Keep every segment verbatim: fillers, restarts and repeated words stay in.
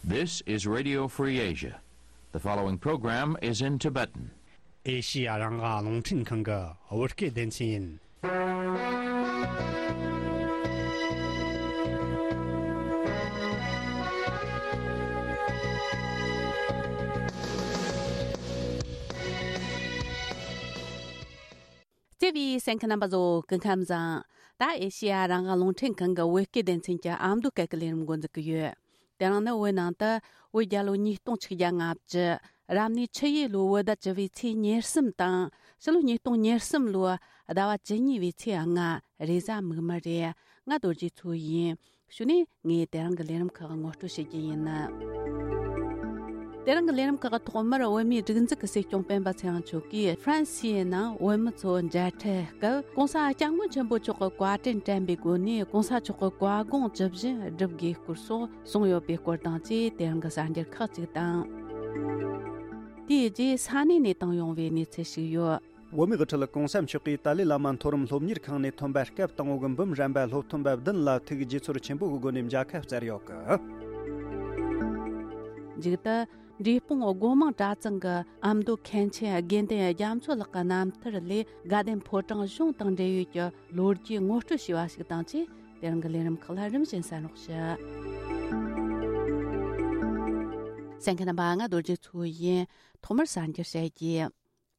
This is Radio Free Asia. The following program is in Tibetan. ཨེ་ཤི་ཡ་རང་དབང་རླུང་འཕྲིན་ཁང་གི་བོད་སྐད་སྡེ་ཚན་ཡིན། བརྩེ་བའི་གསན་མཁན་རྣམ་པ་ཚོ་སྐུ་ཁམས་བཟང་། ད་ཨེ་ཤི་ཡ་རང་དབང་རླུང་འཕྲིན་ཁང་གི་བོད་སྐད་སྡེ་ཚན་གྱི་ཨ་མདོ་སྐད་ཀྱི་ལས་རིམ་འགོ་འཛུགས་ཀྱི་ཡོད། དེ་རིང་ནི་བོད་ནང་དུ་བོད་རྒྱལ་ལོ་ཉིས་སྟོང་ཆིག་བརྒྱ་ལྔ་བཅུ། རབ་གནས་ཆུ་ཡོས་ལོའི་བོད་ཟླ་བཅུ་པའི་ཚེས་ཉེར་གསུམ་དང་། ཕྱི་ལོ་ཉིས་སྟོང་ཉེར་གསུམ་ལོའི་ཟླ་བ་བཅུ་གཉིས་པའི་ཚེས་ལྔ། རེས་གཟའ་མིག་དམར་རེད། ང་རྡོ་རྗེ་མཚོ་ཡིན། གཞུག་ནས་ངས་དེ་རིང་གི་ལས་རིམ་ཁག་ངོ་སྤྲོད་བྱེད་རྒྱུ་ཡིན། དེ་རིང་གི་ལས་རིམ་ཁག་ཐོག་མར་བོད་མིའི་སྒྲིག་འཛུགས་ཀྱི་སྲིད་སྐྱོང་སྤེན་པ་ཚེ་རིང་མཆོག་གིས་ཧྥ་རན་སིའི་ནང་བོད་མི་ཚོ་མཇལ་འཕྲད་སྐབས། ྋགོང་ས་ྋསྐྱབས་མགོན་ཆེན་པོ་མཆོག་གི་བཀའ་དྲིན་དྲན་པའི་སྒོ་ནས་ྋགོང་ས་མཆོག་གི་བཀའ་དགོངས་ཇི་བཞིན་སྒྲུབ་དགོས་སྐོར་སོགས་གསུངས་ཡོད་པའི་སྐོར་དང་བཅས། དེ་རིང་གི་གསར་འགྱུར་ཁག་ཅིག་དང་། དེའི་རྗེས་ས་གནས་ནས་བཏང་ཡོང་བའི་གནས་ཚུལ་ཞིག་ཡོད། བོད་མིའི་དབུ་ཁྲིད་ྋགོང་ས་མཆོག་གིས་ཏཱ་ལའི་བླ་མ་མཐོ་རིམ་སློབ་གཉེར་ཁང་ནས་ཐོན་པ་སྐབས་དང་པོ་གི་འབུམ་རམས་པ་སློབ་ཐོན་པ་བདུན་ལ་ཐུགས་དགྱེས་ཚོར་ཆེན་པོ་གི་སྒོ་ནས་མཇལ་ཁ་བསྩལ་ཡོད་གི། མཇུག་ཏུ། འབྲས་སྤུངས་སྒོ་མང་གྲྭ་ཚང་གི་ཨ་མདོ་མཁན་ཆེན་དགེ་འདུན་རྒྱ་མཚོ་ལགས་ཀྱི་རྣམ་ཐར་ལས། དགའ་ལྡན་ཕོ་བྲང་གཞུང་དང་འབྲེལ་ཡོད་ཀྱི་ལོ་རྒྱུས་ངོ་སྤྲོད་བྱས་པ་ཞིག་དང་བཅས། དེ་རིང་གི་ལས་རིམ་ཁག་ལ་རིམ་བཞིན་གསན་རོགས་ཞུ། གསན་མཁན་རྣམ་པ། ང་རྡོ་རྗེ་མཚོ་ཡིན། ཐོག་མར་གསར་འགྱུར་བཤད་རྒྱུ།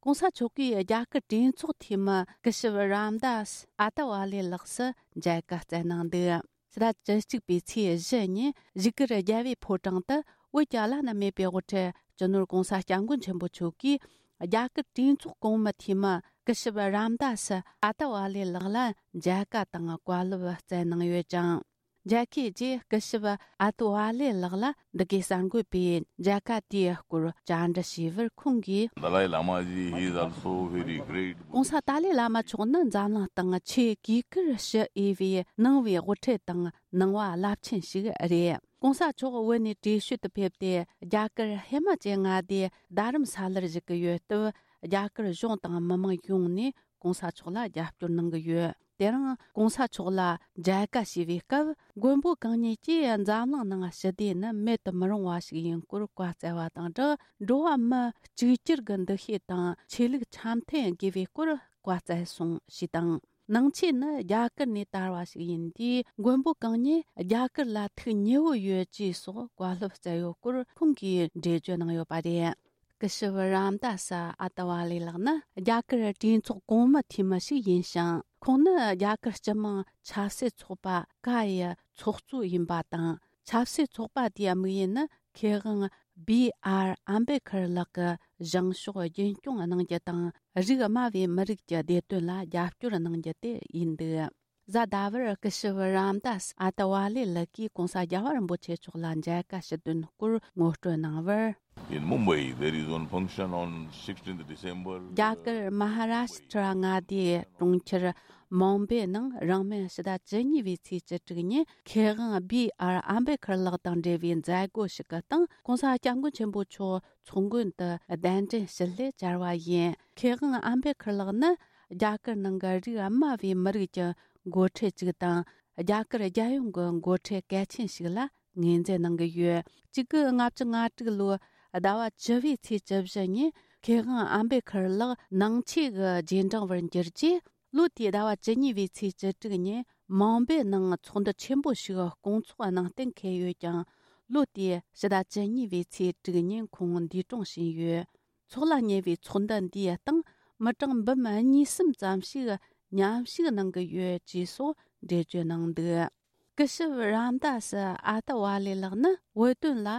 ྋགོང་ས་མཆོག་གིས་རྒྱ་གར་གྲོས་ཚོགས་འཐུས་མི་སྐུ་ཞབས་རམ་དཱས་ཨ་ཏ་ཝ་ལེ་ལགས་སུ་མཇལ་ཁ་བསྩལ་གནང་འདུག། ཕྱི་ཟླ་བཅུ་གཅིག་པའི་ཚེས་བཞི་ཉིན་བཞུགས་སྒར་རྒྱལ་བའི་ཕོ་བྲང་དུ་བོད་ཀྱི་བླ་ན་མེད་པའི་དབུ་ཁྲིད་སྤྱི་ནོར་ྋགོང་ས་ྋསྐྱབས་མགོན་ཆེན་པོ་མཆོག་གིས་རྒྱ་གར་གྲོས་ཚོགས་གོང་མའི་འཐུས་མི་སྐུ་ཞབས་རམ་དཱས་ཨ་ཏ་ཝ་ལེ་ལགས་ལ་མཇལ་ཁ་དང་བཀའ་སློབ་བསྩལ་གནང་ཡོད་ཅིང་། མཇལ་ཁའི་རྗེས་སྐུ་ཞབས་ཨ་ཏ་ཝ་ལེ་ལགས་ལ་འདི་གའི་གསར་འགོད་པས་མཇལ་ཁ་དེའི་སྐོར་བཅར་འདྲི་ཞུས་པར། ཁོང་གིས། Dalai Lama ji, he is also very great. ྋགོང་ས་ཏཱ་ལའི་བླ་མ་མཆོག་ནི་འཛམ་གླིང་སྟེང་ཆེས་གུས་བཀུར་ཞུ་འོས་པའི་ནང་པའི་དབུ་ཁྲིད་དང་ནང་པ་རླབས་ཆེན་ཞིག་རེད། ྋགོང་ས་མཆོག་བོད་ནས་བྲོས་བྱོལ་དུ་ཕེབས་ཏེ། རྒྱ་གར་ཧི་མ་ཅལ་མངའ་སྡེའི་རྡ་རམ་ས་ལར་བཞུགས་ཀྱི་ཡོད་སྟབས། རྒྱ་གར་གཞུང་དང་མི་མང་ཡོངས་ནས་ྋགོང་ས་མཆོག་ལ་རྒྱབ་སྐྱོར་གནང་གི་ཡོད། དེ་རིང་ྋགོང་ས་མཆོག་ལ་མཇལ་ཁ་ཞུས་པའི་སྐབས། མགོན་པོ་གང་ཉིད་ཀྱིས་འཛམ་གླིང་ནང་ཞི་བདེ་ནི་མེད་དུ་མི་རུང་བ་ཞིག་ཡིན་སྐོར་བཀའ་སྩལ་བ་དང་སྦྲགས། འགྲོ་བ་མི་གཅིག་གྱུར་གྱི་འདུ་ཤེས་དང་ཆོས་ལུགས་འཆམ་མཐུན་དགོས་པའི་སྐོར་བཀའ་སྩལ་སོང་ཞེས་དང་། ནང་ཆོས་ནི་རྒྱ་གར་ནས་དར་བ་ཞིག་ཡིན་དུས། མགོན་པོ་གང་ཉིད་རྒྱ་གར་ལ་ཐུགས་མཉེས་པོ་ཡོད་ཅེས་སོགས་བཀའ་སློབ་སྩལ་ཡོད་སྐོར་ཁོང་གིས་འགྲེལ་བརྗོད་གནང་ཡོད་པ་རེད། སྐུ་ཞབས་རམ་དཱས་ཨ་ཏ་ཝ་ལེ་ལགས་ནི་རྒྱ་གར་གྲོས་ཚོགས་གོང་མའི་འཐུས་མི་ཞིག་ཡིན་ཞིང་། ཁོང་ནི་རྒྱ་གར་སྤྱི་དམངས་ཆབ་སྲིད་ཚོགས་པ་ཀ་ཡི་ཚོགས་གཙོ་ཡིན་པ་དང་། ཆབ་སྲིད་ཚོགས་པ་དེའི་དམིགས་ཡུལ་ནི་མཁས་དབང་བི་ཨར་ཨམ་བེ་ཁར་ལགས་ཀྱི་བཞེངས་ཕྱོགས་རྒྱུན་སྐྱོང་གནང་རྒྱུ་དང་། རིགས་དམའ་བའི་མི་རིགས་ཀྱི་བདེ་དོན་ལ་རྒྱབ་སྐྱོར་གནང་རྒྱུ་དེ་ཡིན་འདུག། གཟའ་ཟླ་བར་སྐུ་ཞབས་རམ་དཱས་ཨ་ཏ་ཝ་ལེ་ལགས་ཀྱིས་ྋགོང་ས་རྒྱལ་བ་རིན་པོ་ཆེ་མཆོག་ལ་མཇལ་ཁ་ཞུ་དོན་སྐོར་ངོ་སྤྲོད་གནང་བར། In Mumbai, there is one function on sixteenth December. རྒྱ་གར་མ་ཧ་རཱ་ཤི་ཏྲ་མངའ་སྡེའི་གྲོང་ཁྱེར་མུམ་བེ་ནང་རིང་མིན་ཕྱི་ཟླ་བཅུ་གཉིས་པའི་ཚེས་བཅུ་དྲུག་ཉིན་མཁས་དབང་བི་ཨར་ཨམ་བེ་ཁར་ལགས་དང་འབྲེལ་བའི་མཛད་སྒོ་ཞིག་གི་སྟེང་ྋགོང་ས་ྋསྐྱབས་མགོན་ཆེན་པོ་མཆོག་ཚོགས་མགོན་དུ་གདན་འདྲེན་ཞུ་སླད་བཅར་བ་ཡིན། མཁས་དབང་ཨམ་བེ་ཁར་ལགས་ནི་རྒྱ་གར་ནང་གི་རིགས་དམའ་བའི་མི་རིགས་ཀྱི་འགོ་ཁྲིད་ཅིག་དང་། རྒྱ་གར་རྒྱལ་ཡོངས་ཀྱི་འགོ་ཁྲིད་གལ་ཆེན་ཞིག་ལ་ངོས་འཛིན་གནང་གི་ཡོད། གཅིག་དགུ་ལྔ་བཅུ་ང་དྲུག་ལོའི་ཟླ་བ་བཅུ་པའི་ཚེས་བཅུ་བཞི་ཉིན་མཁས་དབང་ཨམ་བེ་ཁར་ལགས་ནང་ཆོས་ཀྱི་རྗེས་འབྲང་བར་འགྱུར་རྗེས། ལོ་དེའི་ཟླ་བ་བཅུ་གཉིས་པའི་ཚེས་བཅུ་དྲུག་ཉིན་མུམ་བེ་ནང་ཚོགས་འདུ་ཆེན་པོ་ཞིག་སྐོང་ཚོགས་གནང་གཏན་འཁེལ་ཡོད་ཀྱང་། ལོ་དེའི་ཕྱི་ཟླ་བཅུ་གཉིས་པའི་ཚེས་དྲུག་ཉིན་ཁོང་འདས་གྲོངས་ཕྱིན་ཡོད། ཚོགས་ལ་ཉེ་བའི་ཚོགས་འདུ་འདིའི་སྟེང་མི་གྲངས་འབུམ་གཉིས་གསུམ་ཙམ་ཞིག་མཉམ་ཞུགས་གནང་གི་ཡོད་ཅེས་སོགས་འགྲེལ་བརྗོད་གནང་འདུག། སྐུ་ཞབས་རམ་དཱས་ཨ་ཏ་ཝ་ལེ་ལགས་ནི་བོད་དོན་ལ་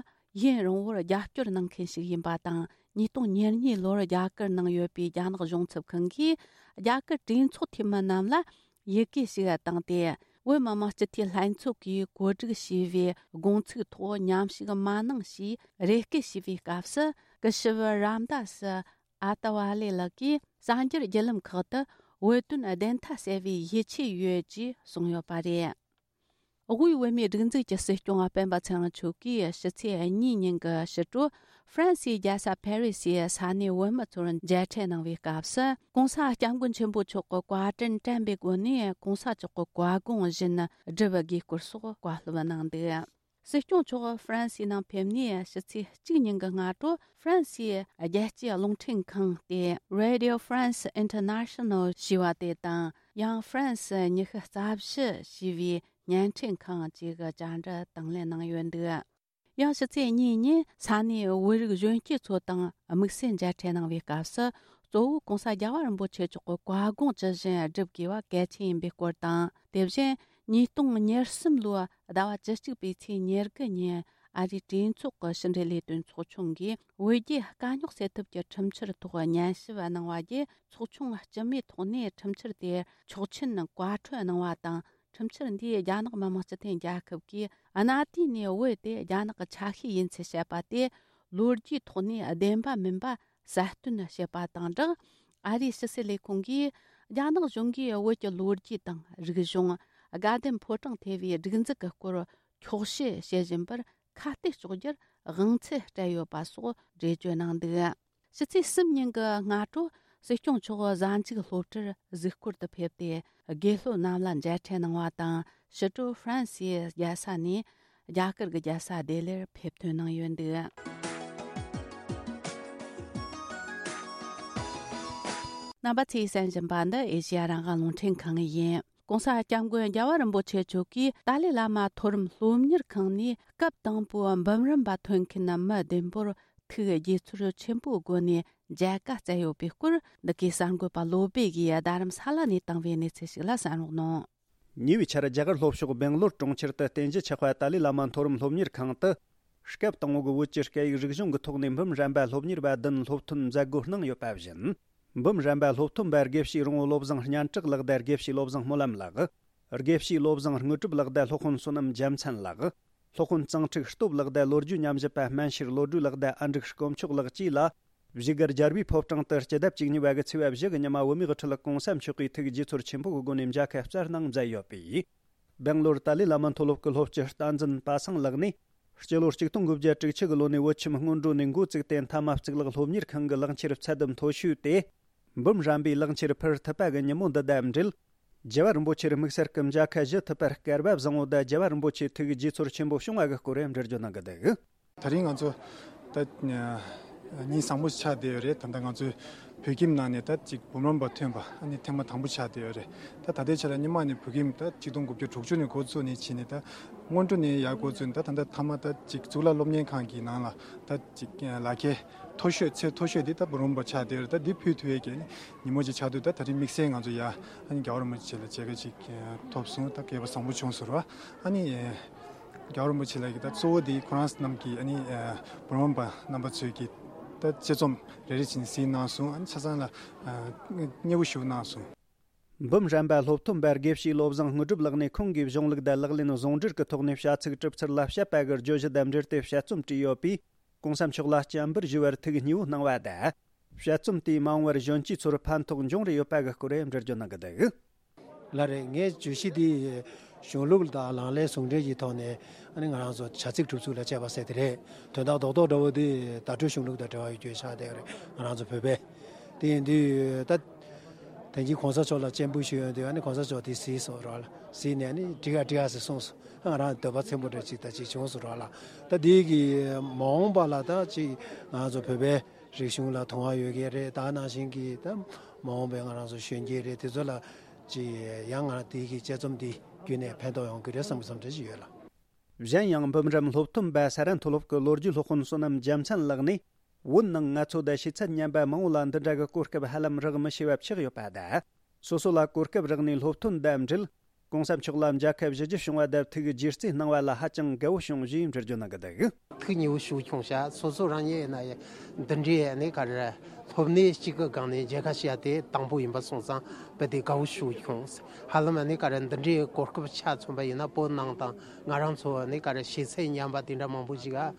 ཡུན་རིང་བོར་རྒྱབ་སྐྱོར་གནང་མཁན་ཞིག་ཡིན་པ་དང་། ཉིས་སྟོང་ཉེར་གཉིས་ལོར་རྒྱ་གར་ནང་ཡོད་པའི་རྒྱ་ནག་གཞུང་ཚབ་ཁང་གིས་རྒྱ་གར་གྲོས་ཚོགས་འཐུས་མི་རྣམས་ལ་ཡི་གེ་ཞིག་བཏང་སྟེ། བོད་མི་མང་སྤྱི་འཐུས་ལྷན་ཚོགས་ཀྱིས་གོ་སྒྲིག་བྱས་པའི་དགོངས་ཚུལ་ཐོག་མཉམ་ཞུགས་མ་གནང་ཞེས་རེ་སྐུལ་བྱས་པའི་སྐབས་སུ། སྐུ་ཞབས་རམ་དཱས་ཨ་ཏ་ཝ་ལེ་ལགས་ཀྱིས་གསར་འགྱུར་བརྒྱུད་ལམ་ཁག་ཏུ་བོད་དོན་བདེན་མཐའ་གསལ་བའི་ཡིད་ཆེས་ཡོད་ཅེས་གསུངས་ཡོད་པ་རེད། དབུས་བོད་མིའི་སྒྲིག་འཛུགས་ཀྱི་སྲིད་སྐྱོང་སྤེན་པ་ཚེ་རིང་མཆོག་གིས་ཕྱི་ཚེས་གཉིས་ཉིན་གྱི་ཕྱི་དྲོ་ཧྥ་རན་སིའི་རྒྱལ་ས་ཕ་རི་སིའི་ས་གནས་བོད་མི་ཚོར་མཇལ་འཕྲད་གནང་བའི་སྐབས་སུ། ྋགོང་ས་ྋསྐྱབས་མགོན་ཆེན་པོ་མཆོག་གི་བཀའ་དྲིན་དྲན་པའི་སྒོ་ནས་ྋགོང་ས་མཆོག་གི་བཀའ་དགོངས་བཞིན་སྒྲུབ་དགོས་སྐོར་སོགས་བཀའ་སློབ་གནང་འདུག། སྲིད་སྐྱོང་མཆོག་ཧྥ་རན་སིའི་ནང་ཕེབས་ནས་ཕྱི་ཚེས་གཅིག་ཉིན་གྱི་སྔ་དྲོ་ཧྥ་རན་སིའི་རྒྱལ་སྤྱིའི་རླུང་འཕྲིན་ཁང་སྟེ་Radio France International ཞེས་པ་དེ་དང་ཡང་ཧྥ་རན་སི་ཉི་ཤུ་རྩ་བཞི་ཞེས་པའི་བརྙན་འཕྲིན་ཁང་བཅས་ཀྱི་བཅར་འདྲི་དང་ལེན་གནང་ཡོད་འདུག་ཡང་ཕྱི་ཚེས་གཉིས་ཉིན་ས་གནས་བོད་རིགས་གཞོན་སྐྱེས་ཚོ་དང་དམིགས་བསལ་མཇལ་འཕྲད་གནང་བའི་སྐབས་སུ། གཙོ་བོ་༸གོང་ས་རྒྱལ་བ་རིན་པོ་ཆེ་མཆོག་གི་བཀའ་དགོངས་ཇི་བཞིན་སྒྲུབ་དགོས་པ་གལ་ཆེན་ཡིན་པའི་སྐོར་དང་། དེ་བཞིན་ཉིས་སྟོང་ཉེར་གསུམ་ལོའི་ཟླ་བ་བཅུ་གཅིག་པའི་ཚེས་ཉེར་དགུ་ཉིན་ཨ་རིའི་གྲོས་ཚོགས་ཀྱི་ཕྱི་འབྲེལ་ལས་དོན་ཚོགས་ཆུང་གིས་བོད་རྒྱའི་དཀའ་རྙོག་སེལ་ཐབས་ཀྱི་ཁྲིམས་འཆར་ཐོག་ཉན་ཞིབ་གནང་བ་བརྒྱུད། ཚོགས་ཆུང་སྤྱི་མོས་ཐོག་ནས་ཁྲིམས་འཆར་དེར་ཆོག་མཆན་བཀའ་འཁྲོལ་གནང་བ་དང་། ཁྲིམས་འཆར་འདིས་རྒྱ་ནག་མི་དམངས་སྤྱི་མཐུན་རྒྱལ་ཁབ་ཀྱིས་གནའ་དུས་ནས་བོད་དེ་རྒྱ་ནག་གི་ཆ་ཤས་ཡིན་ཚུལ་བཤད་པ་དེ་ལོ་རྒྱུས་ཐོག་ནས་བདེན་པ་མིན་པ་གསལ་སྟོན་བྱས་པ་དང་སྦྲགས། ཨ་རིའི་ཕྱི་སྲིད་ལས་ཁུངས་ཀྱིས་རྒྱ་ནག་གཞུང་གིས་བོད་ཀྱི་ལོ་རྒྱུས་དང་རིག་གཞུང་། དགའ་ལྡན་ཕོ་བྲང་ཐེ་བའི་སྒྲིག་འཛུགས་ཀྱི་སྐོར་འཁྱོག་བཤད་བྱེད་བཞིན་པར་ཁ་གཏད་གཅོག་རྒྱུར་དབང་ཚད་སྤྲད་ཡོད་པ་སོགས་འགྲེལ་བརྗོད་གནང་འདུག་ཕྱི་ཚེས་གསུམ་ཉིན་གྱི་སྔ་དྲོ་སྲིད་སྐྱོང་མཆོག་གཟའ་མཇུག་སློབ་གྲྭར་གཟིགས་སྐོར་དུ་ཕེབས་ཏེ། དགེ་སློབ་རྣམས་ལ་མཇལ་འཕྲད་གནང་བ་དང་། ཕྱི་དྲོ་ཧྥ་རན་སིའི་རྒྱལ་ས་ནས་རྒྱ་གར་གྱི་རྒྱལ་ས་ལྡི་ལིར་ཕེབས་ཐོན་གནང་ཡོད་འདུག་རྣམ་པ་ཚོས་གསན་བཞིན་པ་འདི་ཨེ་ཤེ་ཡ་རང་དབང་རླུང་འཕྲིན་ཁང་ཡིན། ༸གོང་ས་༸སྐྱབས་མགོན་རྒྱལ་བ་རིན་པོ་ཆེ་མཆོག་གིས་ཏཱ་ལའི་བླ་མ་མཐོ་རིམ་སློབ་གཉེར་ཁང་ནས་སྐབས་དང་པོའི་འབུམ་རམས་པ་ཐོན་མཁན་མི་བདུན་པོར་ཐུགས་དགྱེས་ཚོར་ཆེན་པོའི་སྒོ་ནས་མཇལ་ཁ་བསྩལ་ཡོད་པའི་སྐོར། འདི་གའི་གསར་འགོད་པ་བློ་སྦེ་གིས་རྡ་རམ་ས་ལ་ནས་བཏང་བའི་གནས་ཚུལ་ཞིག་ལ་གསན་རོགས་གནང་། ཉེ་བའི་ཆར་རྒྱ་གར་ལྷོ་ཕྱོགས་སྦེང་ལོར་གྲོང་ཁྱེར་དུ་རྟེན་གཞི་ཆགས་པ་ཏཱ་ལའི་བླ་མ་མཐོ་རིམ་སློབ་གཉེར་ཁང་དུ། སྐབས་དང་པོ་གི་བོད་ཀྱི་སྐད་ཡིག་རིག་གཞུང་གི་ཐོག་ནས་འབུམ་རམས་པ་སློབ་གཉེར་བ་བདུན་སློབ་ཐོན་མཛད་སྒོ་གནང་ཡོད་པ་བཞིན། འབུམ་རམས་པ་སློབ་ཐོན་པ་དགེ་བཤེས་རོང་བོ་བློ་བཟང་སྙན་གྲགས་ལགས་དང་དགེ་བཤེས་བློ་བཟང་སྨོན་ལམ་ལགས། དགེ་བཤེས་བློ་བཟང་དངོས་གྲུབ་ལགས་དང་སློབ་དཔོན་བསོད་ནམས་རྒྱལ་མཚན་ལགས། སློབ་དཔོན་གཙང་ཁྲིག་སྟོབས་ལགས་དང་ལོ་རྒྱུས་ཉམས་ཞིབ་པ་སྨན་ཤེར་བློ་གྲོས་ལགས་དང་ཨ་འབྲུག་དཀོན་མཆོག་ལགས་བཅས་ལ། བཞུགས་སྒར་རྒྱལ་བའི་ཕོ་བྲང་དུ་སྤྱི་ཟླ་བཅུ་གཉིས་པ་གི་ཚེས་པ་བཞི་གི་ཉི་མ་བོད་མིའི་དབུ་ཁྲིད་༸གོང་ས་མཆོག་གིས་ཐུགས་དགྱེས་ཚོར་ཆེན་པོ་གི་སྒོ་ནས་མཇལ་ཁ་བསྩལ་གནང་མཛད་ཡོད་པས། སྦེང་ལོར་ཏཱ་ལའི་བླ་མ་མཐོ་སློབ་ཀྱི་སློབ་སྤྱི་བསྟན་འཛིན་པ་སངས་ལགས་ནས། སྤྱི་ལོ་ཆིག་སྟོང་དགུ་བརྒྱ་དྲུག་ཅུ་གི་ལོ་ནས་བོད་ཁྱིམ་སྔོན་འགྲོ་ནས་འགོ་བཙུགས་ཏེ་མཐའ་མ་གཙུག་ལག་སློབ་གཉེར་ཁང་གི་ལག་འཁྱེར་ཚད་ལྡན་མཐོ་ཤོས་ཏེ། འབུམ་རམས་པའི་ལག་འཁྱེར་ཕུལ་ཐུབ་པ་གི་ཉིན་མོ་འདི་དང་འབྲེལ། རྒྱལ་བ་རིན་པོ་ཆེར་དམིགས་བསལ་གྱི་མཇལ་ཁ་ཞུ་ཐུབ་པར་སྐལ་བ་བཟང་བོ་དང་རྒྱལ་བ་རིན་པོ་ཆེའི་ཐུགས་དགྱེས་ཚོར་ཆེན་པོ་བྱུང་བ་གི་སྐོར་འགྲེལ་བརྗོད་གནང་གི་འདུག་དེ་རིང་ང་ཚོ་ད་ཉིན་བཟང་པོ་ཆགས་བསྡད་ཡོད་རེད། ད་ལྟ་ང་ཚོའི་བོད་ཁྱིམ་ནང་ནས་ད་ཅིག་འབུམ་རམས་པ་ཐོན་པ་ཨ་ནི་ཐེངས་མ་དང་པོ་ཆགས་བསྡད་ཡོད་རེད། ད་ད་ལྟའི་ཆ་ལ་སྔོན་མ་ནས་བོད་ཁྱིམ་ད་ཆིག་སྟོང་དགུ་བརྒྱ་དྲུག་ཅུ་ནས་འགོ་བཙུགས་ནས་ཕྱིན་ནས་ད་སྔོན་འགྲོ་ནས་ཡར་འགོ་བཙུགས་ནས་ད་ད་ལྟ་མཐའ་མ་ད་ཅིག་གཙུག་ལག་སློབ་གཉེར་ཁང་གི་ནང་ལ་ད་ཅིག་ལག་འཁྱེར་མཐོ་ཤོས་ཚད་མཐོ་ཤོས་འདི་ད་འབུམ་རམས་པ་ཆགས་བསྡད་ཡོད་རེད། ད་འདི་ཕུལ་ཐུབ་ཡས་ཀྱི་ཉིན་མོ་ཅིག་ཆགས་དུས་ད་ད་རིང་དམིགས་བསལ་ང་ཚོ་ཡ་ཨ་ནི་རྒྱལ་བ་རིན་པོ་ཆེ་ལ་མཇལ་ཁ་ཅིག་ཐོབ་སོང་། ད་སྐལ་བ་བཟང་པོ་བྱུང་སོང་ར། ཨ་ནི། རྒྱལ་བ་རིན་པོ་ཆེ་ལགས་ཀྱིས་ད་གཙོ་བོ་དེ་ཁོ་རང་རྣམས་ཀྱིས་ཨ་ནི་འབུམ་རམས་པ་རྣམ་པ་ཚོས་ཀྱིས་ད་དཔྱད་རྩོམ་རེ་རེ་བྱས་ནས་གཟིགས་གནང་སོང་། ཨ་ནི་ཆ་ཚང་ལ་མཉེས་པོ་ཞུ་གནང་སོང་། འབུམ་རམས་པ་སློབ་ཐོན་པ་དགེ་བཤེས་བློ་བཟང་དངོས་གྲུབ་ལགས་ནས་ཁོང་གི་གཞུང་ལུགས་དང་ལག་ལེན་ཟུང་འབྲེལ་གྱི་ཐོག་ནས་བྱ་ཚིག་གྲུབ་ཚུལ་ལ་དཔྱད་པ་གི་བརྗོད་གཞི་དང་འབྲེལ་ཏེ་དཔྱད་རྩོམ་བྲིས་ཡོད་པས། ༸གོང་ས་མཆོག་ལ་སྤྱན་འབུལ་ཞུ་བར་ཐུགས་མཉེས་པོ་གནང་བ་དང་། དཔྱད་རྩོམ་དེས་མ་འོངས་པར་གཞོན་སྐྱེས་ཚོར་ཕན་ཐོགས་འབྱུང་རེ་ཡོད་པ་གི་སྐོར་འགྲེལ་བརྗོད་གནང་གི་འདུག་ལགས་རེད། ངའི་བརྗོད་གཞི་འདི་གཞུང་ལུགས་དང་ལག་ལེན་ཟུང་འབྲེལ་གྱི་ཐོག་ནས་ཨ་ནི་ང་རང་ཚོ་བྱ་ཚིག་གྲུབ་ཚུལ་ལ་དཔྱད་པ་ཟེར་དེ་རེད། དོན་དག་རྡོག་རྡོག་འདྲ་བོ་འདི་བརྡ་སྤྲོད་གཞུང་ལུགས་དང་འབྲེལ་བ་ཡོད་རྒྱུ་ཆགས་བསྡད་ཡོད་རེད། ང་རང་ཚོ་བོད་པས་དེ་ཡིན་དུས་ད་དེང་གི་གོང་ས་མཆོག་ལ་སྤྱན་འབུལ་ཞུས་ཡོང་དུས་ཨ་ནི་གོང་ས་མཆོག་དེ་གཟིགས་སོང་ར་ལ། གཟིགས་ནས་ཨ་ནི་འགྲིག་ཨ་འགྲིག་ཨ་ཟེར་གསུངས་སོང་། ཨ་ང་རང་འདོད་པ་ཚིམ་པོ་འདྲ་ཅིག་ད་ཅིག་བྱུང་སོང་ར་ལ། ད་དེ་གི་མ་འོངས་པ་ལ་ད་ཅིག་ང་ཚོ་བོད་པའི་རིག་གཞུང་ལ་དུང་བ་ཡོད་ཀྱི་རེད། ད་ནང་བཞིན་གྱི་ད་མ་འོངས་པའི་ང་རང་ཚོ་གཞོན་སྐྱེས་རེད། དེ་ཚོ་ལ་ཅིག་ཡང་ང་རང་དེ་གི་དཔྱད་རྩོམ་འདི་བརྒྱུད་ནས་ཕན་ཐོགས་ཡོང་གི་རེད་བསམ་གྱི་བསམ་འཆར་ཞིག་ཡོད་ལ། གཞན་ཡང་འབུམ་རམས་སློབ་ཐོན་པ་ས་ར་མཐོ་སློབ་ཀྱི་ལོ་རྒྱུས་སློབ་དཔོན་བསོད་ནམས་རྒྱལ་མཚན་ལགས་ནས། བོད་ནང་ང་ཚོ་དང་ཕྱི་ཚད་མཉམ་པ་མང་བོ་ལ་འདི་འདྲ་གི་གོ་སྐབས་ཧ་ལམ་རག་མི་ཤེས་པ་ཆགས་ཡོད་པ་དང་། སོ་སོ་ལ་གོ་སྐབས་རག་ནས་སློབ་ཐོན་དང་འབྲེལ། གོང་ས་མཆོག་ལ་མཇལ་ཁ་ཞུ་རྒྱུ་བྱུང་བ་དང་ཐུགས་རྗེ་བརྩེ་གནང་བ་ལ་ཧ་ཅང་དགའ་བོ་བྱུང་ཞེས་འགྲེལ་བརྗོད་གནང་གི་འདུག་ཐུགས་མཉེས་པོ་ཞིག་བྱུང་ཤག་སོ་སོ་རང་ཉིད་ཡིན་ན་ཡང་འདི་འདྲའི་ནི་ག་རེ་སློབ་གནས་གཅིག་གི་སྒང་ནས་མཇལ་ཁ་བྱས་དེ་དང་པོ་ཡིན་པ་སོང་ཙང་རྦད་དེ་དགའ་བོ་ཞིག་བྱུང་། ཧ་ལམ་ནི་ག་རེ་འདི་འདྲའི་གོ་སྐབས་ཆ་མཚོན་པ་ཡིན་ན་བོད་ནང་དང་ང་རང་ཚོ་ནི་ག་རེ་ཤེས་ཚད་མཉམ་པ་དེ་འདྲ་མང་པོ་ཞིག་ག་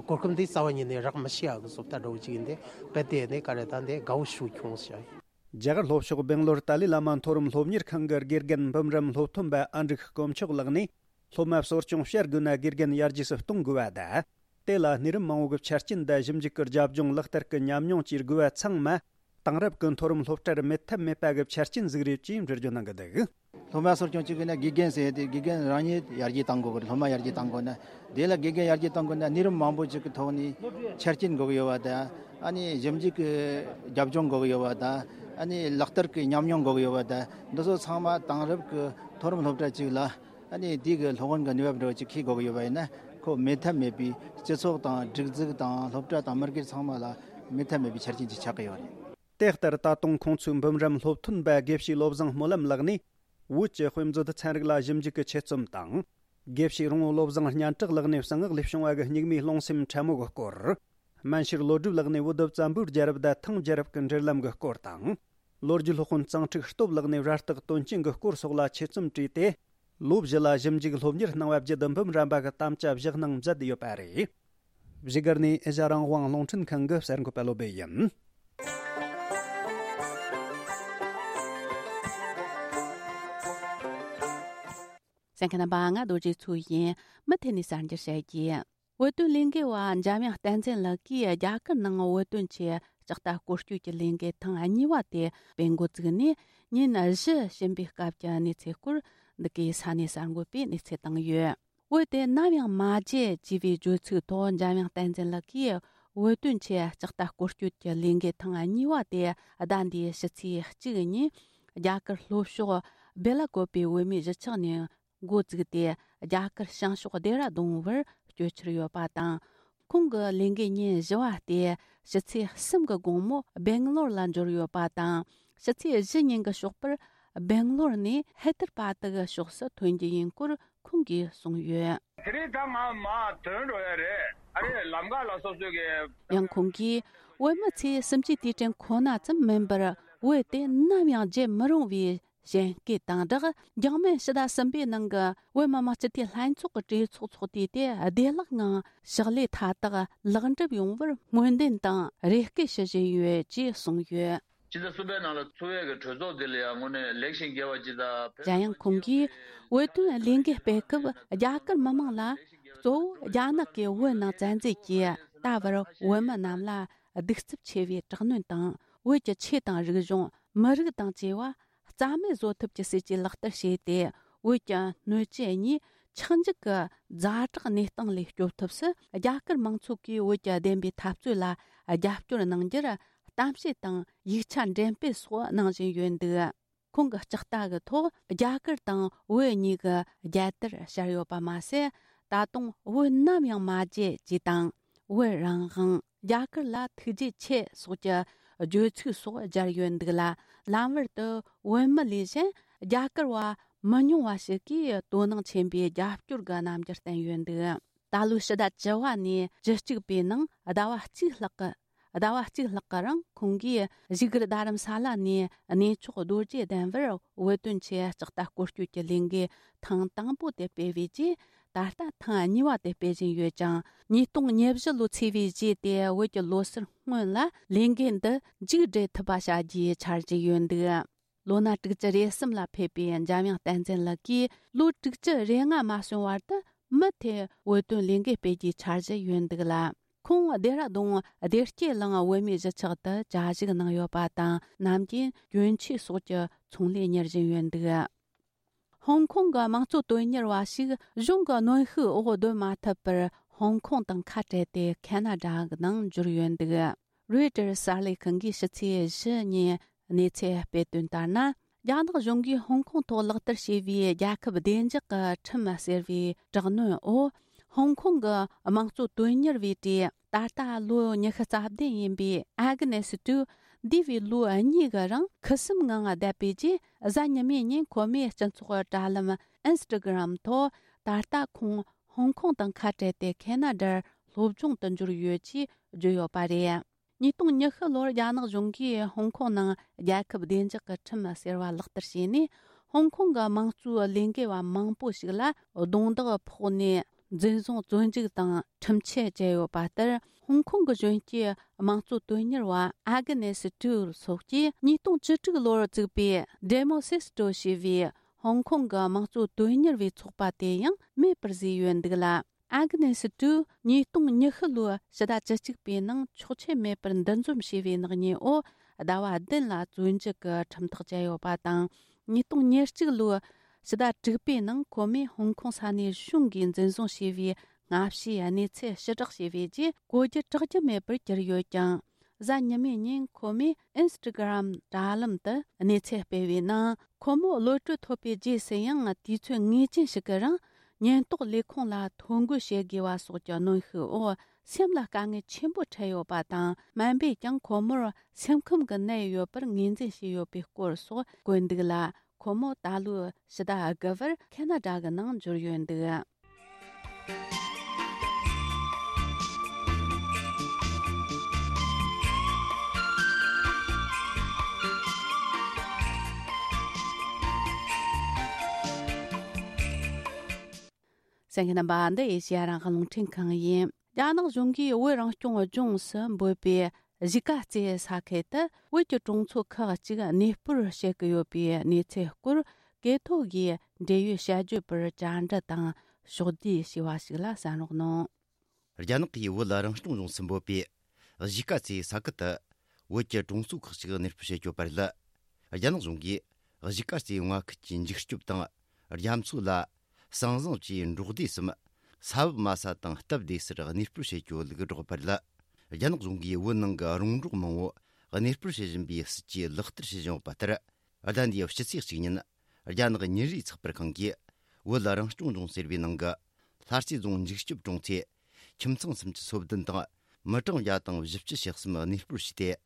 གོ་སྐབས་འདི་རྩ་བ་ཉིད་ནས་རག་མི་ཤེས་ཡག་གི་བཟོ་ལྟ་འདྲ་བོ་ཅིག་ཡིན་ཏེ་རྦད་དེ་ནི་ག་རེ་ད་འདི་དགའ་བོ་ཞིག་བྱུང་ཟེར། རྒྱ་གར་ལྷོ་ཕྱོགས་སྦེང་ལོར་ཏཱ་ལའི་བླ་མ་མཐོ་རིམ་སློབ་གཉེར་ཁང་གི་དགེ་རྒན་འབུམ་རམས་སློབ་ཐོན་པ་ཨ་འབྲུག་དཀོན་མཆོག་ལགས་ནས། སློབ་མ་གསོ་སྐྱོང་བྱ་དགོས་ན་དགེ་རྒན་ཡར་རྒྱས་སུ་གཏོང་དགོས་པ་དང་། དེ་ལ་གནས་རིམ་མང་བོ་གི་ཆ་རྐྱེན་དང་ཞིབ་འཇུག་གི་རྒྱབ་ལྗོངས་ལག་བསྟར་གྱི་ཉམས་མྱོང་བཅས་དགོས་པ་ཚང་མ། དེང་རབས་ཀྱི་མཐོ་རིམ་སློབ་གྲྭར་མེད་ཐབས་མེད་པ་གི་ཆ་རྐྱེན་ཟིག་རེད་ཅེས་འགྲེལ་བརྗོད་གནང་གི་འདུག། སློབ་མ་གསོ་སྐྱོང་བྱེད་དགོས་ན་དགེ་རྒན་ཟེར་ཡ་དེ་དགེ་རྒན་རང་ཉིད་ཡར་རྒྱས་གཏང་དགོས་གི་རེད། སློབ་མ་ཡར་རྒྱས་གཏང་དགོས་ན། དེ་ལ་དགེ་རྒན་ཡར་རྒྱས་གཏང་དགོས་ན་གནས་རིམ་མང་པོ་ཅིག་གི་ཐོག་ནས་ཆ་རྐྱེན་དགོས་གི་ཡོད་པ་དང་། ཨ་ནི་ཞིབ་འཇུག་གི་རྒྱབ་ལྗོངས་དགོས་གི་ཡོད་པ་དང་། ཨ་ནི་ལག་བསྟར་གི་ཉམས་མྱོང་དགོས་གི་ཡོད་པ་དང་། འདི་ཚོ་ཚང་མ་དེང་རབས་ཀྱི་མཐོ་རིམ་སློབ་གྲྭ་ཅིག་ལ། ཨ་ནི་དེ་གི་སློབ་སྦྱོང་གི་ནུས་པ་འདྲ་བོ་ཅིག་ཁྱེར་དགོས་གི་ཡོད་པ་ཡིན་ན། ཁོ་མེད་ཐབས་མེད་པའི་སྤྱི་ཚོགས་དང་སྒྲིག་འཛུགས་དང་སློབ་གྲྭ་དང་མི་སྒེར་ཚང་མ་ལ་མེད་ཐབས་མེད་པའི་ཆ་རྐྱེན་ཅིག་ཆགས་ཀྱི་ཡོད་རེད། དེ་ལྟར་ད་དུང་ཁོང་ཚོའི་འབུམ་རམས་སློབ་ཐོན་པ་དགེ་བཤེས་བློ་བཟང་སྨོན་ལམ་ལགས་ནས། བོད་ཀྱི་དཔེ་མཛོད་ཚན་རིག་ལ་ཞིབ་འཇུག་གི་ཆེད་རྩོམ་དང་། དགེ་བཤེས་རོང་བོ་བློ་བཟང་སྙན་གྲགས་ལགས་ནས་གསང་སྔགས་ལས་བྱུང་བ་གི་སྙིགས་མའི་རླུང་སེམས་ཕྲ་མོ་གི་སྐོར། སྨན་ཤེར་བློ་གྲོས་ལགས་ནས་བོད་བཙན་པོའི་རྒྱལ་རབས་དང་ཐང་རྒྱལ་རབས་ཀྱི་འབྲེལ་ལམ་གྱི་སྐོར་དང་། ལོ་རྒྱུས་སློབ་དཔོན་གཙང་ཁྲིག་སྟོབས་ལགས་ནས་རྭ་སྟག་དོན་རྐྱེན་གྱི་སྐོར་སོགས་ལ་ཆེད་རྩོམ་བྲིས་ཏེ། ལོ་བཞི་ལ་ཞིབ་འཇུག་སློབ་གཉེར་གནང་བ་བརྒྱུད་འབུམ་རམས་པ་གི་དམ་བཅའ་བཞག་གནང་མཛད་ཡོད་པ་རེད། བཞུགས་སྒར་ནས་ཨེ་ཤ་རང་དབང་རླུང་འཕྲིན་ཁང་གི་གསར་འགོད་པ་བློ་སྦེ་ཡིན། གསན་མཁན་རྣམ་པ། ང་རྡོ་རྗེ་མཚོ་ཡིན། མུ་མཐུད་ནས་གསར་འགྱུར་བཤད་རྒྱུ། བོད་དོན་ལས་འགུལ་བ་འཇམ་དབྱངས་བསྟན་འཛིན་ལགས་ཀྱིས་རྒྱ་གར་ནང་བོད་དོན་ཆེད་ལྕགས་རྟ་སྐོར་སྐྱོད་ཀྱི་ལས་འགུལ་ཐེངས་གཉིས་པ་དེ་སྤེལ་འགོ་བཙུགས་ནས་ཉིན་བཞི་ཕྱིན་པའི་སྐབས་ཀྱི་གནས་ཚུལ་སྐོར་འདི་གའི་ས་གནས་གསར་འགོད་པས་གནས་ཚུལ་བཏང་ཡོད། བོད་དེ་ནམ་ཡང་མ་བརྗེད་ཅེས་པའི་བརྗོད་ཚིག་ཐོག་འཇམ་དབྱངས་བསྟན་འཛིན་ལགས་ཀྱིས་བོད་དོན་ཆེད་ལྕགས་རྟ་སྐོར་སྐྱོད་ཀྱི་ལས་འགུལ་ཐེངས་གཉིས་པ་དེ་ཟླ་འདིའི་ཕྱི་ཚེས་གཅིག་ཉིན་རྒྱ་གར་ལྷོ་ཕྱོགས་སྦེ་ལ་ཀོབ་པའི་བོད་མིའི་གཞིས་ཆགས་ནས་འགོ་བཙུགས་ཏེ། རྒྱ་གར་བྱང་ཕྱོགས་ལྡེ་ར་ལྡུན་བར་སྐྱོད་འཆར་ཡོད་པ་དང་། ཁོང་གི་ལས་འགུལ་ཉིན་བཞི་བ་སྟེ་ཕྱི་ཚེས་གསུམ་གྱི་དགོང་མོ་སྦེང་ལོར་ལ་འབྱོར་ཡོད་པ་དང་། ཕྱི་ཚེས་བཞི་ཉིན་གྱི་ཞོགས་པར་སྦེང་ལོར་ནས་ཧེ་དར་བ་ཏི་གི་ཕྱོགས་སུ་ཐོན་རྒྱུ་ཡིན་སྐོར་ཁོང་གིས་གསུངས་ཡོད། དེ་རིང་ད་ང་མར་ཐོན་འགྲོ་ཡ་རེད། ཨ་རེ་ལམ་ཁ་ལ་སོ་སོ་གི། ཡང་ཁོང་གིས་བོད་མི་ཚོས་གསུམ་བཅུའི་དུས་དྲན་ཁོ་ན་ཙམ་མིན་པར། བོད་དེ་ནམ་ཡང་བརྗེད་མི་རུང་བའི་གཞན་སྐད་དང་སྦྲགས། འཇིགས་མེད་ཕྱི་ཟླ་གསུམ་པའི་ནང་གི་བོད་མི་མང་སྤྱི་འཐུས་ལྷན་ཚོགས་ཀྱི་གྲོས་ཚོགས་ཚོགས་དུས་དེ་བདེ་བླག་ངང་ཕྱག་ལས་མཐའ་དག་ལེགས་འགྲུབ་ཡོང་བར་སྨོན་འདུན་དང་རེ་སྐུལ་ཞུ་བཞིན་ཡོད་ཅེས་གསུངས་ཡོད། ཕྱི་ཟླ་གསུམ་པའི་ནང་ལ་ཚོགས་པའི་གི་གྲོས་ཚོགས་འདི་ལ་ཡང་དངོས་གནས་ལེགས་ཤིང་དགེ་བ་ཇི་ལྟར་ཕེབས། གཞན་ཡང་ཁོང་གིས་བོད་དོན་ལས་འགུལ་སྤེལ་སྐབས་རྒྱ་གར་མི་མང་ལ། གཙོ་བོ་རྒྱ་ནག་གིས་བོད་ནང་བཙན་འཛུལ་གྱིས་ད་བར་བོད་མི་རྣམས་ལ་གདུག་རྩུབ་ཆེ་བའི་དྲག་གནོན་དང་། བོད་ཀྱི་ཆོས་དང་རིག་གཞུང་། མི་རིགས་དང་བཅས་པ་རྩ་མེད་བཟོ་ཐབས་ཀྱི་སྲིད་ཇུས་ལག་བསྟར་བྱས་ཏེ། བོད་ཀྱི་སྣོད་བཅུད་གཉིས་ཆག་འཇིག་གི་ཛ་དྲག་གནས་སྟངས་ལས་སྐྱོབ་ཐབས་སུ་རྒྱ་གར་མང་ཚོགས་ཀྱིས་བོད་ཀྱི་བདེན་པའི་འཐབ་རྩོད་ལ་རྒྱབ་སྐྱོར་གནང་རྒྱུར་གཏམ་བཤད་དང་ཡིག་ཆ་འགྲེམས་སྤེལ་སོགས་གནང་བཞིན་ཡོད་འདུག། ཁོང་གི་ལྕགས་རྟ་གི་ཐོག་རྒྱ་གར་དང་བོད་གཉིས་ཀྱི་རྒྱལ་དར་ཤར་ཡོད་པ་མ་ཟད། ད་དུང་བོད་ནམ་ཡང་མ་བརྗེད་ཅེས་དང་། བོད་རང་དབང་། རྒྱ་གར་ལ་ཐུགས་རྗེ་ཆེ་སོགས་ཀྱི་བརྗོད་ཚིག་སོགས་སྦྱར་ཡོད་འདུག་ལ། ལམ་བར་དུ་བོད་མི་ལས་གཞན་རྒྱ་གར་བ་མི་ཉུང་བ་ཞིག་གིས་དོ་སྣང་ཆེན་པོས་རྒྱབ་སྐྱོར་གྱི་རྣམ་འགྱུར་བསྟན་ཡོད་འདུག། ད་ལོའི་ཕྱི་ཟླ་བཅུ་བ་ནས་བཅུ་གཅིག་པའི་ནང་ཟླ་བ་གཅིག་ལྷག་གི་ཟླ་བ་གཅིག་ལྷག་གི་རིང་ཁོང་གིས་བཞུགས་སྒར་རྡ་རམ་ས་ལ་ནས་གནས་མཆོག་རྡོ་རྗེ་གདན་བར་བོད་དོན་ཆེད་ལྕགས་རྟ་སྐོར་སྐྱོད་ཀྱི་ལས་འགུལ་ཐེངས་དང་པོ་དེ་སྤེལ་བའི་རྗེས། ད་ལྟ་ཐེངས་གཉིས་པ་དེ་སྤེལ་བཞིན་ཡོད་ཅིང་། ཉིས་སྟོང་ཉེར་བཞི་ལོ་ཚེས་པའི་རྗེས་ཏེ་བོད་ཀྱི་ལོ་གསར་སྔོན་ལ་ལས་འགུལ་འདི་མཇུག་སྒྲིལ་ཐུབ་པ་བྱ་རྒྱུའི་འཆར་གཞི་ཡོད་འདུག། ལོ་ན་དྲུག་ཅུ་རེ་གསུམ་ལ་ཕེབས་པའི་འཇམ་དབྱངས་བསྟན་འཛིན་ལགས་ཀྱིས་ལོ་དྲུག་ཅུ་རེ་ལྔ་མ་སོན་བར་དུ་མུ་མཐུད་བོད་དོན་ལས་འགུལ་སྤེལ་རྒྱུའི་འཆར་གཞི་ཡོད་འདུག་ལ། ཁོང་ལྡེ་ར་ལྡུན་བདེ་སྐྱིད་གླིང་བོད་མིའི་གཞིས་ཆགས་དུ་བཅའ་བཞུགས་གནང་ཡོད་པ་དང་། ནམ་རྒྱུན་གྱོན་ཆས་སོགས་ཀྱི་ཚོང་ལས་གཉེར་བཞིན་ཡོད་འདུག། ཧོང་ཀོང་གི་དམངས་གཙོ་དོན་གཉེར་བ་ཞིག་གཞུང་གི་གནོན་ཤུགས་འོག་སྡོད་མ་ཐུབ་པར། ཧོང་ཀོང་དང་ཁ་བྲལ་ཏེ་ཁེ་ན་ཌ་གི་ནང་འབྱོར་ཡོད་འདུག། རོའི་ཊར་གསར་ལས་ཁང་གིས་ཕྱི་ཚེས་བཞི་ཉིན་གནས་ཚུལ་སྤེལ་དོན་ལྟར་ན། རྒྱ་ནག་གཞུང་གིས་ཧོང་ཀོང་ཐོག་ལག་བསྟར་བྱས་པའི་རྒྱལ་ཁབ་བདེ་འཇགས་ཀྱི་ཁྲིམས་ཟེར་བའི་དྲག་གནོན་འོག། ཧོང་ཀོང་གི་དམངས་གཙོ་དོན་གཉེར་བའི་གྲས་ད་ལྟ་ལོ་ཉི་ཤུ་རྩ་བདུན་ཡིན་པའི་ཨ་གི་ནེ་སི་ཏུ། འདས་པའི་ལོ་གཉིས་ཀྱི་རིང་ཁུ་སིམ་ངང་བསྡད་པའི་རྗེས། གཟའ་ཉི་མའི་ཉིན་ཁོ་མོས་སྤྱི་ཚོགས་དྲ་ལམ་ཨིན་སི་ཊ་གྷི་རམ་ཐོག་ད་ལྟ་ཁོང་ཧོང་ཀོང་དང་ཁ་བྲལ་ཏེ་ཁེ་ན་ཌར་སློབ་སྦྱོང་དུ་འབྱོར་ཡོད་ཅེས་བརྗོད་ཡོད་པ་རེད། ཉིས་སྟོང་ཉི་ཤུ་ལོར་རྒྱ་ནག་གཞུང་གིས་ཧོང་ཀོང་ནང་རྒྱལ་ཁབ་བདེ་འཇགས་ཀྱི་ཁྲིམས་ཟེར་བ་ལག་བསྟར་བྱས་ནས། ཧོང་ཀོང་གི་དམངས་གཙོའི་ལས་འགུལ་བ་མང་པོ་ཞིག་ལ་རྡུང་རྡེག་ཕོག་ནས་འཛིན་བཟུང་བཙོན་འཇུག་དང་ཁྲིམས་ཆད་བཅད་ཡོད་པ་ལྟར། ཧོང་ཀོང་གི་གཞོན་སྐྱེས་དམངས་གཙོ་དོན་གཉེར་བ་ཨ་གི་ནེ་སི་ཏུ་སོགས་ཀྱིས་ཉིས་སྟོང་བཅུ་དྲུག་ལོར་བཙུགས་པའི་ཌེ་མོ་སི་སི་ཏོ་ཞེས་པའི་ཧོང་ཀོང་གི་དམངས་གཙོ་དོན་གཉེར་བའི་ཚོགས་པ་དེ་ཡང་མེད་པར་བཟོས་ཡོད་འདུག་ལ། ཨ་གི་ནེ་སི་ཏུ་ཉིས་སྟོང་ཉི་ཤུ་ལོའི་ཕྱི་ཟླ་བཅུ་གཅིག་པའི་ནང་ཆོག་མཆན་མེད་པར་འདུ་འཛོམས་བྱས་པའི་ནག་ཉེས་འོག་ ཟླ་བ་བདུན་ལ་བཙོན་འཇུག་གི་ཁྲིམས་ཐག་བཅད་ཡོད་པ་དང་། ཉིས་སྟོང་ཉེར་གཅིག་ལོའི་ཕྱི་ཟླ་དྲུག་པའི་ནང་ཁོ་མོས་ཧོང་ཀོང་ས་གནས་གཞུང་གིས་འཛིན་བཟུང་བྱས་པའི་སྔ་ཕྱིའི་གནས་ཚུལ་ཕྱིར་བསྒྲགས་བྱས་པའི་རྗེས། གོ་རྒྱུ་གྲག་རྒྱུ་མེད་པར་གྱུར་ཡོད་ཀྱང་། གཟའ་ཉི་མའི་ཉིན་ཁོ་མོས་ཨིན་སི་ཊ་གྷི་རམ་དྲ་ལམ་དུ་གནས་ཚུལ་སྤེལ་བའི་ནང་། ཁོ་མོ་གློད་གྲོལ་ཐོབ་པའི་རྗེས་སུ་ཡང་། དུས་ཚོད་ངེས་ཅན་ཞིག་གི་རིང་ཉེན་རྟོག་ལས་ཁུངས་ལ་ཐོ་འགོད་བྱེད་དགོས་པ་སོགས་ཀྱི་གནོན་ཤུགས་འོག་སེམས་ལ་དཀའ་ངལ་ཆེན་པོ་འཕྲད་ཡོད་པ་དང་། སྨན་པས་ཀྱང་ཁོ་མོར་སེམས་ཁམས་ཀྱི་ནད་ཡོད་པར་ངོས་འཛིན་བྱས་ཡོད་པའི་སྐོར་སོགས་བཀོད་འདུག་ལ། ཁོ་མོ་ད་ལོའི་ཕྱི་ཟླ་དགུ་པར་ཁེ་ན་ཌ་གི་ནང་འབྱོར་ཡོད་འདུག། གསན་མཁན་རྣམ་པ། འདི་ཨེ་ཤེ་ཡ་རང་དབང་རླུང་འཕྲིན་ཁང་ཡིན། རྒྱ་ནག་གཞུང་གིས་བོད་རང་སྐྱོང་ལྗོངས་སུ་འབོད་པའི་གཞིས་ཀ་རྩེ་ས་ཁུལ་དུ་བོད་ཀྱི་གྲོང་ཚོ་ཁག་ཅིག་གནས་སྤོར་བྱེད་ཀྱི་ཡོད་པའི་གནས་ཚུལ་སྐོར། གྲོས་ཐོག་གིས་འབྲེལ་ཡོད་བྱ་སྤྱོད་པར་བཅར་འདྲི་དང་ཕྱོགས་བསྡུས་བྱས་པ་ཞིག་ལ་གསན་རོགས་གནང་། རྒྱ་ནག་གིས་བོད་རང་སྐྱོང་ལྗོངས་སུ་འབོད་པའི་གཞིས་ཀ་རྩེ་ས་ཁུལ་དུ་བོད་ཀྱི་གྲོང་ཚོ་ཁག་ཅིག་གནས་སྤོར་བྱེད་ཀྱི་ཡོད་པ་རེད། རྒྱ་ནག་གཞུང་གིས་གཞིས་ཀ་རྩེ་མངའ་ཁུལ་གྱི་འཇིགས་སྐྱོབ་དང་རྒྱ་མཚོ་ལ་ཟང་ཟིང་བཅས་འབྲོག་སྡེ་གསུམ། ས་བབ་དམའ་ས་དང་སྟབས་བདེ་སར་གནས་སྤོར་བྱེད་རྒྱུ་ལུགས་སྒྲོག་པ་རེད། རྒྱ་ནག་གཞུང་གིས་བོད་ནང་གི་རོང་འབྲོག་མང་བོ་གནས་སྤོར་བྱེད་བཞིན་པའི་སྲིད་ཇུས་ལག་བསྟར་བྱེད་བཞིན་ཡོད་པ་ལྟར། ཟླ་འདིའི་ཕྱི་ཚེས་གཅིག་ཉིན་རྒྱ་ནག་མྱི་རིགས་ཚགས་པར་ཁང་གིས་བོད་རང་སྐྱོང་ལྗོངས་ཟེར་བའི་ནང་གི་ལྷ་རྩེ་རྫོང་འཇིགས་སྐྱོབ་གྲོང་ཚོའི་ཁྱིམ་ཚང་སུམ་ཅུ་སོ་བདུན་དང་མི་གྲངས་བརྒྱ་དང་བཞི་བཅུ་ཞེ་གསུམ་གནས་སྤོར་བྱས་ཏེ།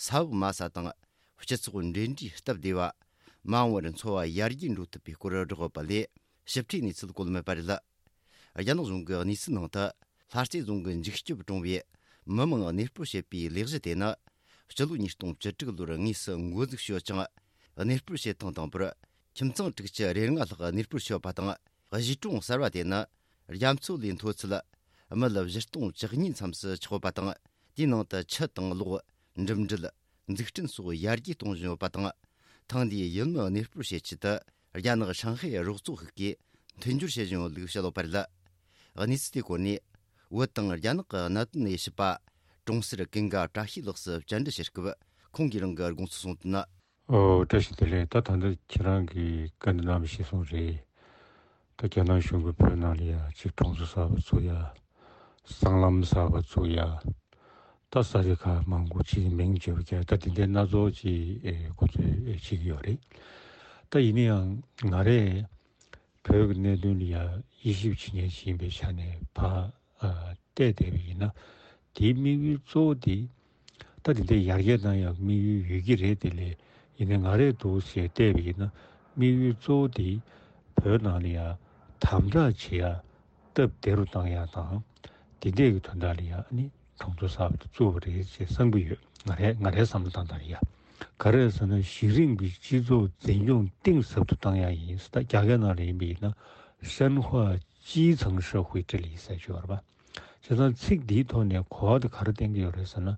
ས་བབ་དམའ་ས་དང་སྤྱི་ཚོགས་འབྲེལ་འདྲིས་སྟབས་བདེ་བ། མ་འོངས་པར་འཚོ་བ་ཡར་རྒྱས་འགྲོ་ཐུབ་པའི་སྐོར་བསྒྲགས་ཡོད་པ་ལས་ཞིབ་ཕྲའི་གནས་ཚུལ་བཀོད་མེད་པ་རེད། རྒྱ་ནག་གཞུང་གི་གནས་ཚུལ་ནང་དུ། ལྷ་རྩེ་རྫོང་གི་འཇིགས་སྐྱོབ་གྲོང་བའི་མི་མང་གནས་སྤོར་བྱེད་པའི་ལས་གཞི་དེ་ནི། སྤྱི་ལོ་ཉིས་སྟོང་བཅུ་དྲུག་ལོར་དངོས་སུ་འགོ་འཛུགས་བྱས་ཡོད་ཅིང་། གནས་སྤོར་བྱེད་སྟངས་དང་པོར་ཁྱིམ་ཚང་དྲུག་ཅུ་རེ་ལྔ་ལྷག་གནས་སྤོར་བྱས་ཡོད་པ་དང་། གཞིས་གྲོང་གསར་བ་དེ་ནི་རྒྱ་མཚོ་ལས་མཐོ་ཚད་མི་ལ་བཞི་སྟོང་བཅུ་གཉིས་མཚམས་སུ་ཆགས་ཡོད་པ་དང་། དེའི་ནང་དུ་ཆུ་དང་གློག་འགྲིམ་འགྲུལ། འཛུགས་སྐྲུན་སོགས་ཡར་རྒྱས་གཏོང་བཞིན་ཡོད་པ་དང་། ཐེངས་འདིའི་ཡུལ་མི་གནས་སྤོར་བྱེད་ཆེད་དུ། རྒྱ་ནག་ཧྲང་ཧའེ་རོགས་ཚོགས་ཤིག་གིས་མཐུན་སྦྱོར་བྱེད་བཞིན་ཡོད་ལུགས་བཤད་ཡོད་པ་རེད། གནས་ཚུལ་དེའི་སྐོར་ནས། བོད་དང་རྒྱ་ནག་གི་གནད་དོན་དབྱེ་ཞིབ་པ། གྲོང་གསར་ཀུན་དགའ་བཀྲ་ཤིས་ལགས་སུ་བཅར་འདྲི་བྱེད་སྐབས། ཁོང་གིས་རང་གི་དགོངས་ཚུལ་གསུངས་དོན། ཨོ། བཀྲ་ཤིས་བདེ་ལེགས། ད་ད་ལྟ་ཁྱེད་རང་གིས་བཀའ་འདྲི་གནང་བ་གཞིར་བཟུང་རེད། ད་རྒྱ་ནག་གཞུང་གིས་བོད་ནང་ལ་ཡ་གཅིག་གྲོང་ཚོ་གསར་པ་བཙུགས་ཡ། སྲང་ལམ་གསར་པ་བཙུགས་ཡ། ད་ས་ཆ་ཁག་མང་པོ་ཅིག་མིང་བརྗེ་པོ་རྒྱག་ད་དེ་འདྲའི་སྣ་ཚོགས་ཅིག་ཨེ་ཁོ་ཚོས་ཨེ་བྱེད་ཀྱི་ཡོད་རེད། ད་ཡིན་ན་ཡང་ང་རས་བོད་ཀྱི་གནད་དོན་ལ་ཡ་དབྱེ་ཞིབ་བྱེད་མཁན་ཞིག་ཡིན་པའི་ཆ་ནས་ཕར་ཨ་བལྟས་བསྡད་པ་ཡིན་ན། དེའི་དམིགས་ཡུལ་གཙོ་བོ་དེ་ད་དེ་འདྲའི་ཡར་རྒྱས་གཏང་ཡག་དམིགས་ཡུལ་ཡོད་ཀྱི་རེད། དེ་ལས་ཡིན་ན་ང་རས་འདུག་ཟེར་བལྟས་པ་ཡིན་ན། དམིགས་ཡུལ་གཙོ་བོ་དེ་བོད་ནང་ལ་ཡ་དམ་དྲག་བྱེད་ཡ། སྟབས་བདེ་རུ་བཏང་ཡག་དང་། དེ་འདྲས་ཀྱི་དོན་དག་ལ་ཡ་ཨ་ནི་གྲོང་ཚོ་གསར་པ་དེ་བཙུགས་པ་རེད་ཅེས་བསམ་གྱི་ཡོད། ང་རའི་ང་རའི་བསམ་བློ་བཏང་སྟངས་ལ་ཡ། ག་རེ་ཟེར་ན་གཞི་རིམ་གྱི་སྤྱི་ཚོགས་འཛིན་སྐྱོང་གཏིང་ཟབ་ཏུ་བཏང་ཡག་ཡིན་ཟེར། ད་རྒྱ་སྐད་ནང་ལ་ཡིན་པ་ཡིན་ན་深化基层社会治理ཟེར་གྱི་ཡོད་རེད་པ། བྱས་ཙང་ཚིག་འདིའི་ཐོག་ནས་གོ་བ་དེ་ག་རེ་བསྟན་གྱི་ཡོད་རེད་ཟེར་ན།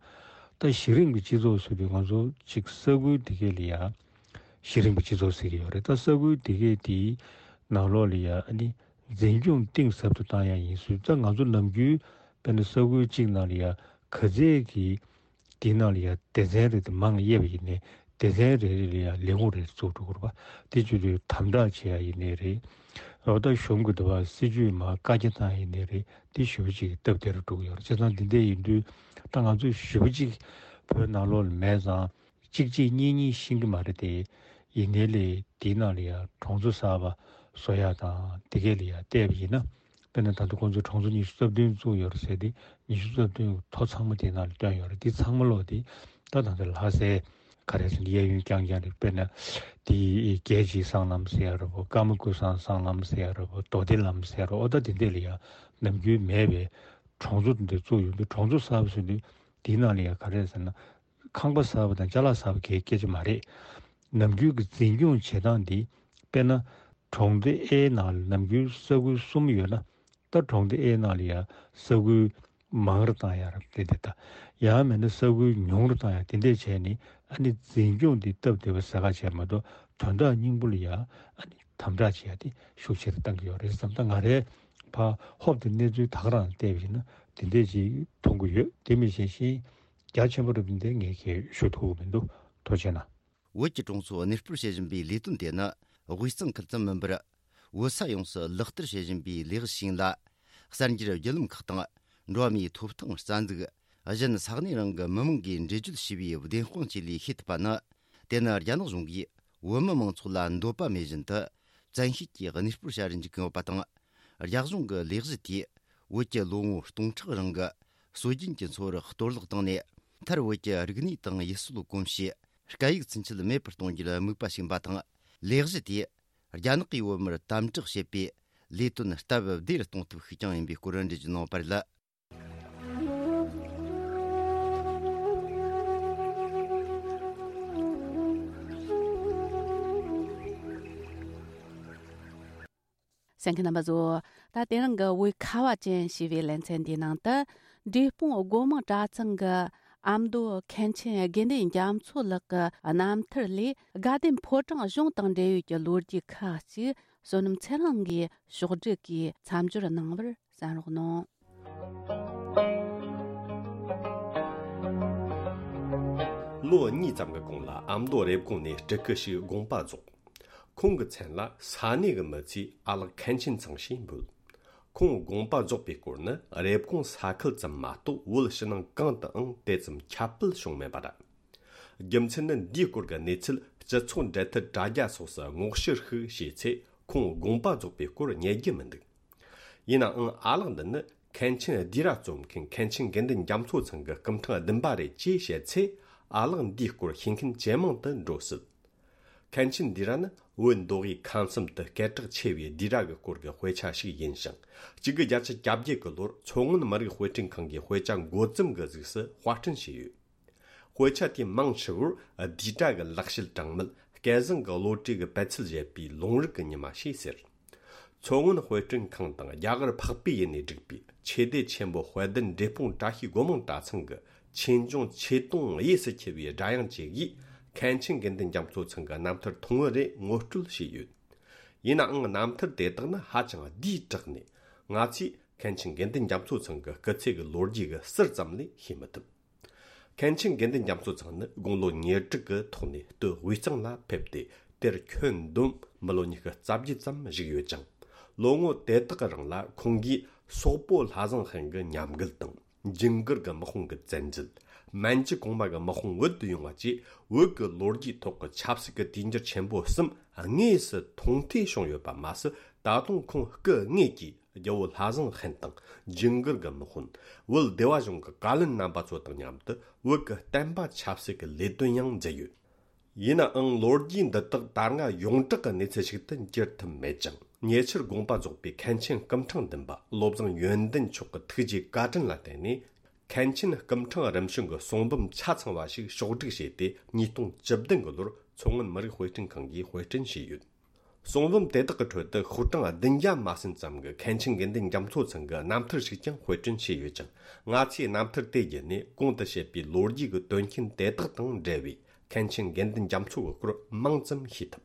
ད་གཞི་རིམ་གྱི་སྤྱི་ཚོགས་ཟེར་དུས་ང་ཚོ་གཅིག་ས་ཁུལ་དེ་གས་ལ་ཡ་གཞི་རིམ་གྱི་སྤྱི་ཚོགས་ཟེར་གྱི་ཡོད་རེད། ད་ས་ཁུལ་དེ་གས་དེའི་ནང་ལོགས་ལ་ཡ་ཨ་ནི་འཛིན་སྐྱོང་གཏིང་ཟབ་ཏུ་བཏང་ཡག་ཡིན་ཟེར། ད་ང་ཚོ་ནམ་རྒྱུན་དཔེར་ན་ས་ཁུལ་གཅིག་ནང་ལ་ཡ་ག་ཚད་ཀྱི་དེའི་ནང་ལ་ཡ་སྡེ་ཚན་རེ་དེ་མང་དབྱེ་བ་ཡིན་ནའི་སྡེ་ཚན་རེ་རེ་ལ་ཡ་ལས་ཁུངས་རེ་རེ་བཙུགས་འགྲོ་དགོས་རེད་པ། དེ་བྱེད་དུས་དམ་དྲག་བྱེད་ཡ་ཡིན་ནའི་རེད། འོ་ད་གཞུང་གི་འདུ་བ་སྲིད་ཇུས་མ་བཀའ་རྒྱ་བཏང་ཡིན་ནའི་རེད། དེ་ཞེ་པོ་ཅིག་སྟབས་བདེ་རུ་འགྲོ་གི་ཡོད་རེད། བྱས་ཙང་འདི་འདྲ་ཡིན་དུས་ད་ང་ཚོ་ཞེ་པོ་ཅིག་བོད་ནང་ལོགས་ལ་མེད་ཙང་གཅིག་གཅིག་གཉིས་གཉིས་ཤེས་ཀྱི་མ་རེད་དེ། ཡིན་ནའི་ལས་དེའི་ནང་ལ་ཡ་གྲོང་ཚོ་གསར་པ་བཟོ་ཡ་དང་དེ་གས་ལ་ཡ་བལྟས་པ་ཡིན་ན། དཔེར་ན་ད་ལྟ་ཁོང་ཚོས་གྲོང་ཚོ་ཉི་ཤུ་རྩ་བདུན་བཙུགས་ཡོད་རེད་ཟེར་ཏེ། ཉི་ཤུ་རྩ་བདུན་གྱི་ཐོ་ཚང་མ་དེའི་ནང་ལ་བཏོན་ཡོད་རེད། དེ་ཚང་མ་ལོག་དེ་ད་ད་ལྟ་ལྷ་སའི་ག་རེ་ཟེར་ན་གཡས་གཡོན་རྐྱང་རྐྱང་རེད། དཔེར་ན་དེ་རྒྱལ་གཅེས་སྲང་ལམ་ཟེར་ཡ་རེད་པོ། ཀརྨ་སྐུ་བཟང་སྲང་ལམ་ཟེར་ཡ་རེད་པོ། རྡོ་སྡེ་ལམ་ཟེར་ཡ་རེད། འོ་ད་དེ་འདྲས་ལ་ཡ་ནམ་རྒྱུན་མེད་པའི་གྲོང་ཚོ་དེ་འདྲ་བཙུགས་ཡོང་དུས། གྲོང་ཚོ་གསར་པ་ཟེར་དུས་དེའི་ནང་ལ་ཡ་ག་རེ་ཟེར་ན། ཁང་པ་གསར་པ་དང་ཅ་ལག་གསར་པ་གའི་སྐད་ཆ་མ་རེད། ནམ་རྒྱུན་གྱི་འཛིན་སྐྱོང་བྱེད་སྟངས་འདི། དཔེར་ན། གྲོང་སྡེ་ཨེ་ནང་ལ་ནམ་རྒྱུན་ས་ཁུལ་གསུམ་ཡོད་ན། ད་གྲོང་སྡེ་ཨེ་ནང་ལ་ཡ་ས་ཁུལ་མང་རུ་བཏང་ཡ་ར་དེ་དེ་ད། ཡང་མིན་ན་ས་ཁུལ་ཉུང་རུ་བཏང་ཡ་དེ་འདྲས་བྱས་ནས། ཨ་ནི་འཛིན་སྐྱོང་འདི་སྟབས་བདེ་བ་ཟེར་ག་བྱས་མ་གཏོགས། དོན་དག་སྙིང་པོ་ལ་ཡ་ཨ་ནི་དམ་དྲག་བྱེད་ཡ་དེ་ཤུགས་ཆེ་རུ་བཏང་གི་ཡོད་རེད་བསམ། ད་ང་རའི་ཕར་ཧོབ་སྟེ་གནས་ཚུལ་ད་ག་རང་བལྟས་པ་ཡིན་ན་དེ་འདྲས་ཅིག་མཐོང་གི་ཡོད། དེ་མིན་གཞན་ཤིང་རྒྱ་ཆེན་པོ་རུ་དེ་འདྲས་ངས་ཁྱེད་ཞུ་ཐུབ་ཀྱི་མི་འདུག། ཐུགས་རྗེ་གནང་། བོད་ཀྱི་གྲོང་ཚོ་གནས་སྤོར་བྱེད་བཞིན་པའི་ལས་དོན་དེ་ནི་དབུས་གཙང་ཁུལ་ཙམ་མིན་པར། བོད་ས་ཡོངས་སུ་ལག་བསྟར་བྱེད་བཞིན་པའི་ལས་གཞི་ཞིག་ཡིན་ལ། གསར་འགྱུར་བརྒྱུད་ལམ་ཁག་དང་འགྲོ་བ་མིའི་ཐོབ་ཐང་རྩ་འཛུགས། གཞན་ས་གནས་རང་གི་མི་མང་གིས་འགྲེལ་བརྗོད་བྱས་པའི་བདེན་དཔང་བཅས་ལས་ཤེས་ཐུབ་པ་ནི། དེ་ནི་རྒྱ་ནག་གཞུང་གིས་བོད་མི་མང་ཚོགས་ལ་འདོད་པ་མེད་བཞིན་དུ། བཙན་ཤེད་ཀྱིས་གནས་སྤོར་བྱ་རུ་འཇུག་གི་ཡོད་པ་དང་། རྒྱ་གཞུང་གི་ལས་གཞི་དེས་བོད་ཀྱི་ལོ་ངོ་སྟོང་ཕྲག་རིང་གི་སྲོལ་རྒྱུན་གྱི་འཚོ་བར་གཏོར་བརླག་བཏང་ནས། མཐར་བོད་ཀྱི་རིག་གནས་དང་ཡུལ་སྲོལ་གོམས་གཤིས། སྐད་ཡིག་ཚུན་ཆད་མེད་པར་གཏོང་རྒྱུར་དམིགས་པ་བྱས་པ་དང་། ལས་གཞི་དེས་རྒྱ་ནག་གིས་བོད་མིར་དམ་དྲག་བྱེད་པའི་ལས་དོན་སྟབས་བདེ་རུ་གཏོང་ཐབས་ཤིག་ཀྱང་ཡིན་པའི་སྐོར་འགྲེལ་བརྗོད་གནང་བ་རེད། གསན་མཁན་རྣམ་པ་ཚོ། ད་དེ་རིང་གི་བོད་ཁ་བ་ཅན་ཞེས་པའི་ལེ་ཚན་འདིའི་ནང་དུ། འབྲས་སྤུངས་སྒོ་མང་གྲྭ་ཚང་གི་ཨ་མདོ་མཁན་ཆེན་དགེ་འདུན་རྒྱ་མཚོ་ལགས་ཀྱི་རྣམ་ཐར་ལས། དགའ་ལྡན་ཕོ་བྲང་གཞུང་དང་འབྲེལ་ཡོད་ཀྱི་ལོ་རྒྱུས་ཁག་ཅིག་བསོད་ནམས་ཚེ་རིང་གིས་ཕྱོགས་སྒྲིག་གིས་མཚམས་སྦྱོར་གནང་བར་གསན་རོགས་གནང་། ལོ་གཉིས་ཙམ་གྱི་གོང་ལ་ཨ་མདོ་རེབ་གོང་ནས་སྤྲུལ་སྐུ་ཞིག་དགོངས་པ་རྫོགས། ཁོང་གི་མཚན་ལ་ས་གནས་ཀྱི་མི་ཚོས་ཨ་ལགས་མཁན་ཆེན་ཚང་ཞེས་འབོད། ཁོང་དགོངས་པ་རྫོགས་པའི་སྐོར་ནི་རེབ་གོང་ས་ཁུལ་ཙམ་མ་གཏོགས། བོད་ཕྱི་ནང་གང་དུའང་དེ་ཙམ་ཁྱབ་སྤེལ་བྱུང་མེད་པ་རེད། རྒྱུ་མཚན་ནི། འདིའི་སྐོར་གྱི་གནས་ཚུལ་སྤྱི་ཚོགས་འབྲེལ་མཐུད་དྲ་རྒྱ་སོགས་སུ་སྔོག་བཤེར་ཞིག་བྱས་ཚེ། ཁོང་དགོངས་པ་རྫོགས་པའི་སྐོར་རྙེད་རྒྱུ་མི་འདུག། ཡིན་ནའང་ཨ་ལགས་འདི་ནི་མཁན་ཆེན་ལྡི་ར་རྩོམ་མཁན་མཁན་ཆེན་དགེ་འདུན་རྒྱ་མཚོ་ཚང་གི་སྐུ་ཕྲེང་བདུན་པ་རེད་ཅེས་བཤད་ཚེ། ཨ་ལགས་འདིའི་སྐོར་ཤེས་མཁན་ཇེ་མང་དུ་འགྲོ་སྲིད། མཁན་ཆེན་ལྡི་ར་ནི་བོད་མདོ་དབུས་ཁམས་གསུམ་དུ་སྐད་གྲགས་ཆེ་བའི་ལྡི་ར་གི་སྐོར་གྱི་དཔེ་ཆ་ཞིག་ཡིན་ཞིང་། གཅིག་དགུ་བརྒྱད་ཅུ་གྱ་བརྒྱད་ཀྱི་ལོར་མཚོ་སྔོན་མི་རིགས་དཔེ་སྐྲུན་ཁང་གིས་དཔེ་ཆ་འགོ་རྩོམ་གྱི་གཟུགས་སུ་དཔར་སྐྲུན་བྱས་ཡོད། དཔེ་ཆ་དེའི་མིང་ཧྲིལ་བོར་ལྡི་ར་གི་ལེགས་བཤད་གྲངས་མེད། སྐལ་བཟང་གི་བློ་གྲོས་ཀྱི་པད་ཚལ་བཞད་པའི་ལུང་རིགས་ཀྱི་ཉི་མ་ཞེས་ཟེར། མཚོ་སྔོན་དཔེ་སྐྲུན་ཁང་དང་རྒྱ་གར་འཕགས་པའི་ཡུལ་ནས་བསྒྲིགས་པའི་ཆོས་སྡེ་ཆེན་པོ་དཔལ་ལྡན་འབྲས་སྤུངས་བཀྲ་ཤིས་སྒོ་མང་གྲྭ་ཚང་གི་ཆོས་འབྱུང་ཆོས་དུང་གཡས་སུ་འཁྱིལ་བའི་སྒྲ་དབྱངས་བཅས་ཀྱིས། མཁན་ཆེན་དགེ་འདུན་རྒྱ་མཚོ་ཚང་གི་རྣམ་ཐར་ཐུང་ངུ་རེ་ངོ་སྤྲོད་བྱས་ཡོད། ཡིན་ནའང་རྣམ་ཐར་དེ་དག་ནི་ཧ་ཅང་བསྡུས་དྲགས་ནས། ང་ཚོས་མཁན་ཆེན་དགེ་འདུན་རྒྱ་མཚོ་ཚང་གི་སྐུ་ཚེ་གི་ལོ་རྒྱུས་ཀྱི་ཟུར་ཙམ་ལས་ཤེས་མི་ཐུབ། མཁན་ཆེན་དགེ་འདུན་རྒྱ་མཚོ་ཚང་ནི་དགུང་ལོ་ཉེར་དྲུག་གི་ཐོག་ནས་སྟོད་དབུས་གཙང་ལ་ཕེབས་ཏེ། དེར་ཁྱོན་བསྡོམས་མི་ལོ་ཉི་ཤུ་རྩ་བརྒྱད་ཙམ་བཞུགས་ཡོད་ཅིང་། ལོ་ངོ་དེ་དག་གི་རིང་ལ་ཁོང་གིས་སོག་པོ་ལྷ་བཟང་ཧན་གྱི་ཉམས་རྒུད་དང་། ཇུན་གར་གྱི་དམག་དཔུང་གི་བཙན་འཛུལ། མན་ཇུ་གོང་མ་གི་དམག་དཔུང་བོད་དུ་ཡོང་བ་བཅས། བོད་ཀྱི་ལོ་རྒྱུས་ཐོག་གི་ཆབ་སྲིད་ཀྱི་དུས་འགྱུར་ཆེན་པོ་གསུམ་དངོས་སུ་མཐོང་ཐོས་བྱུང་ཡོད་པ་མ་ཟད། ད་དུང་ཁོང་སྐུ་དངོས་ཀྱིས་རྒྱལ་བོ་ལྷ་བཟང་ཧན་དང་། ཇུན་གར་གྱི་དམག་དཔོན། བོད་སྡེ་བ་གཞུང་གི་བཀའ་བློན་རྣམ་པ་ཚོ་དང་མཉམ་དུ་བོད་ཀྱི་བསྟན་པ་ཆབ་སྲིད་ཀྱི་ལས་དོན་ཡང་མཛད་ཡོད། ཡིན་ནའང་ལོ་རྒྱུས་འདི་དག་ད་སྔ་ཡོངས་གྲགས་ཀྱི་གནས་ཚུལ་ཞིག་ཏུ་འགྱུར་ཐུབ་མེད་ཅིང་། ཉེ་ཆར་དགོངས་པ་རྫོགས་པའི་མཁན་ཆེན་སྐུ་ཕྲེང་བདུན་པ་བློ་བཟང་ཡོན་ཏན་མཆོག་གི་ཐུགས་རྗེའི་བཀའ་དྲིན་ལ་བརྟེན་ནས། མཁན་ཆེན་སྐུ་ཕྲེང་རིམ་བྱོན་གྱི་གསུང་འབུམ་ཆ་ཚང་བ་ཞིག་ཕྱོགས་བསྒྲིགས་བྱས་ཏེ། ཉིས་སྟོང་བཅུ་བདུན་གྱི་ལོར་མཚོ་སྔོན་མི་རིགས་དཔེ་སྐྲུན་ཁང་གིས་དཔེ་སྐྲུན་བྱས་ཡོད། གསུང་འབུམ་དེ་དག་གི་ཁྲོད་དུ་ཤོག་གྲངས་བདུན་བརྒྱ་མ་ཟིན་ཙམ་གྱི་མཁན་ཆེན་དགེ་འདུན་རྒྱ་མཚོ་ཚང་གི་རྣམ་ཐར་ཞིག་ཀྱང་དཔེ་སྐྲུན་བྱས་ཡོད་ཅིང་། ང་ཚོས་རྣམ་ཐར་དེ་བརྒྱུད་ནས་གོང་དུ་བཤད་པའི་ལོ་རྒྱུས་ཀྱི་དོན་རྐྱེན་དེ་དག་དང་འབྲེལ་བའི་མཁན་ཆེན་དགེ་འདུན་རྒྱ་མཚོ་གི་སྐོར་མང་ཙམ་ཤེས་ཐུབ།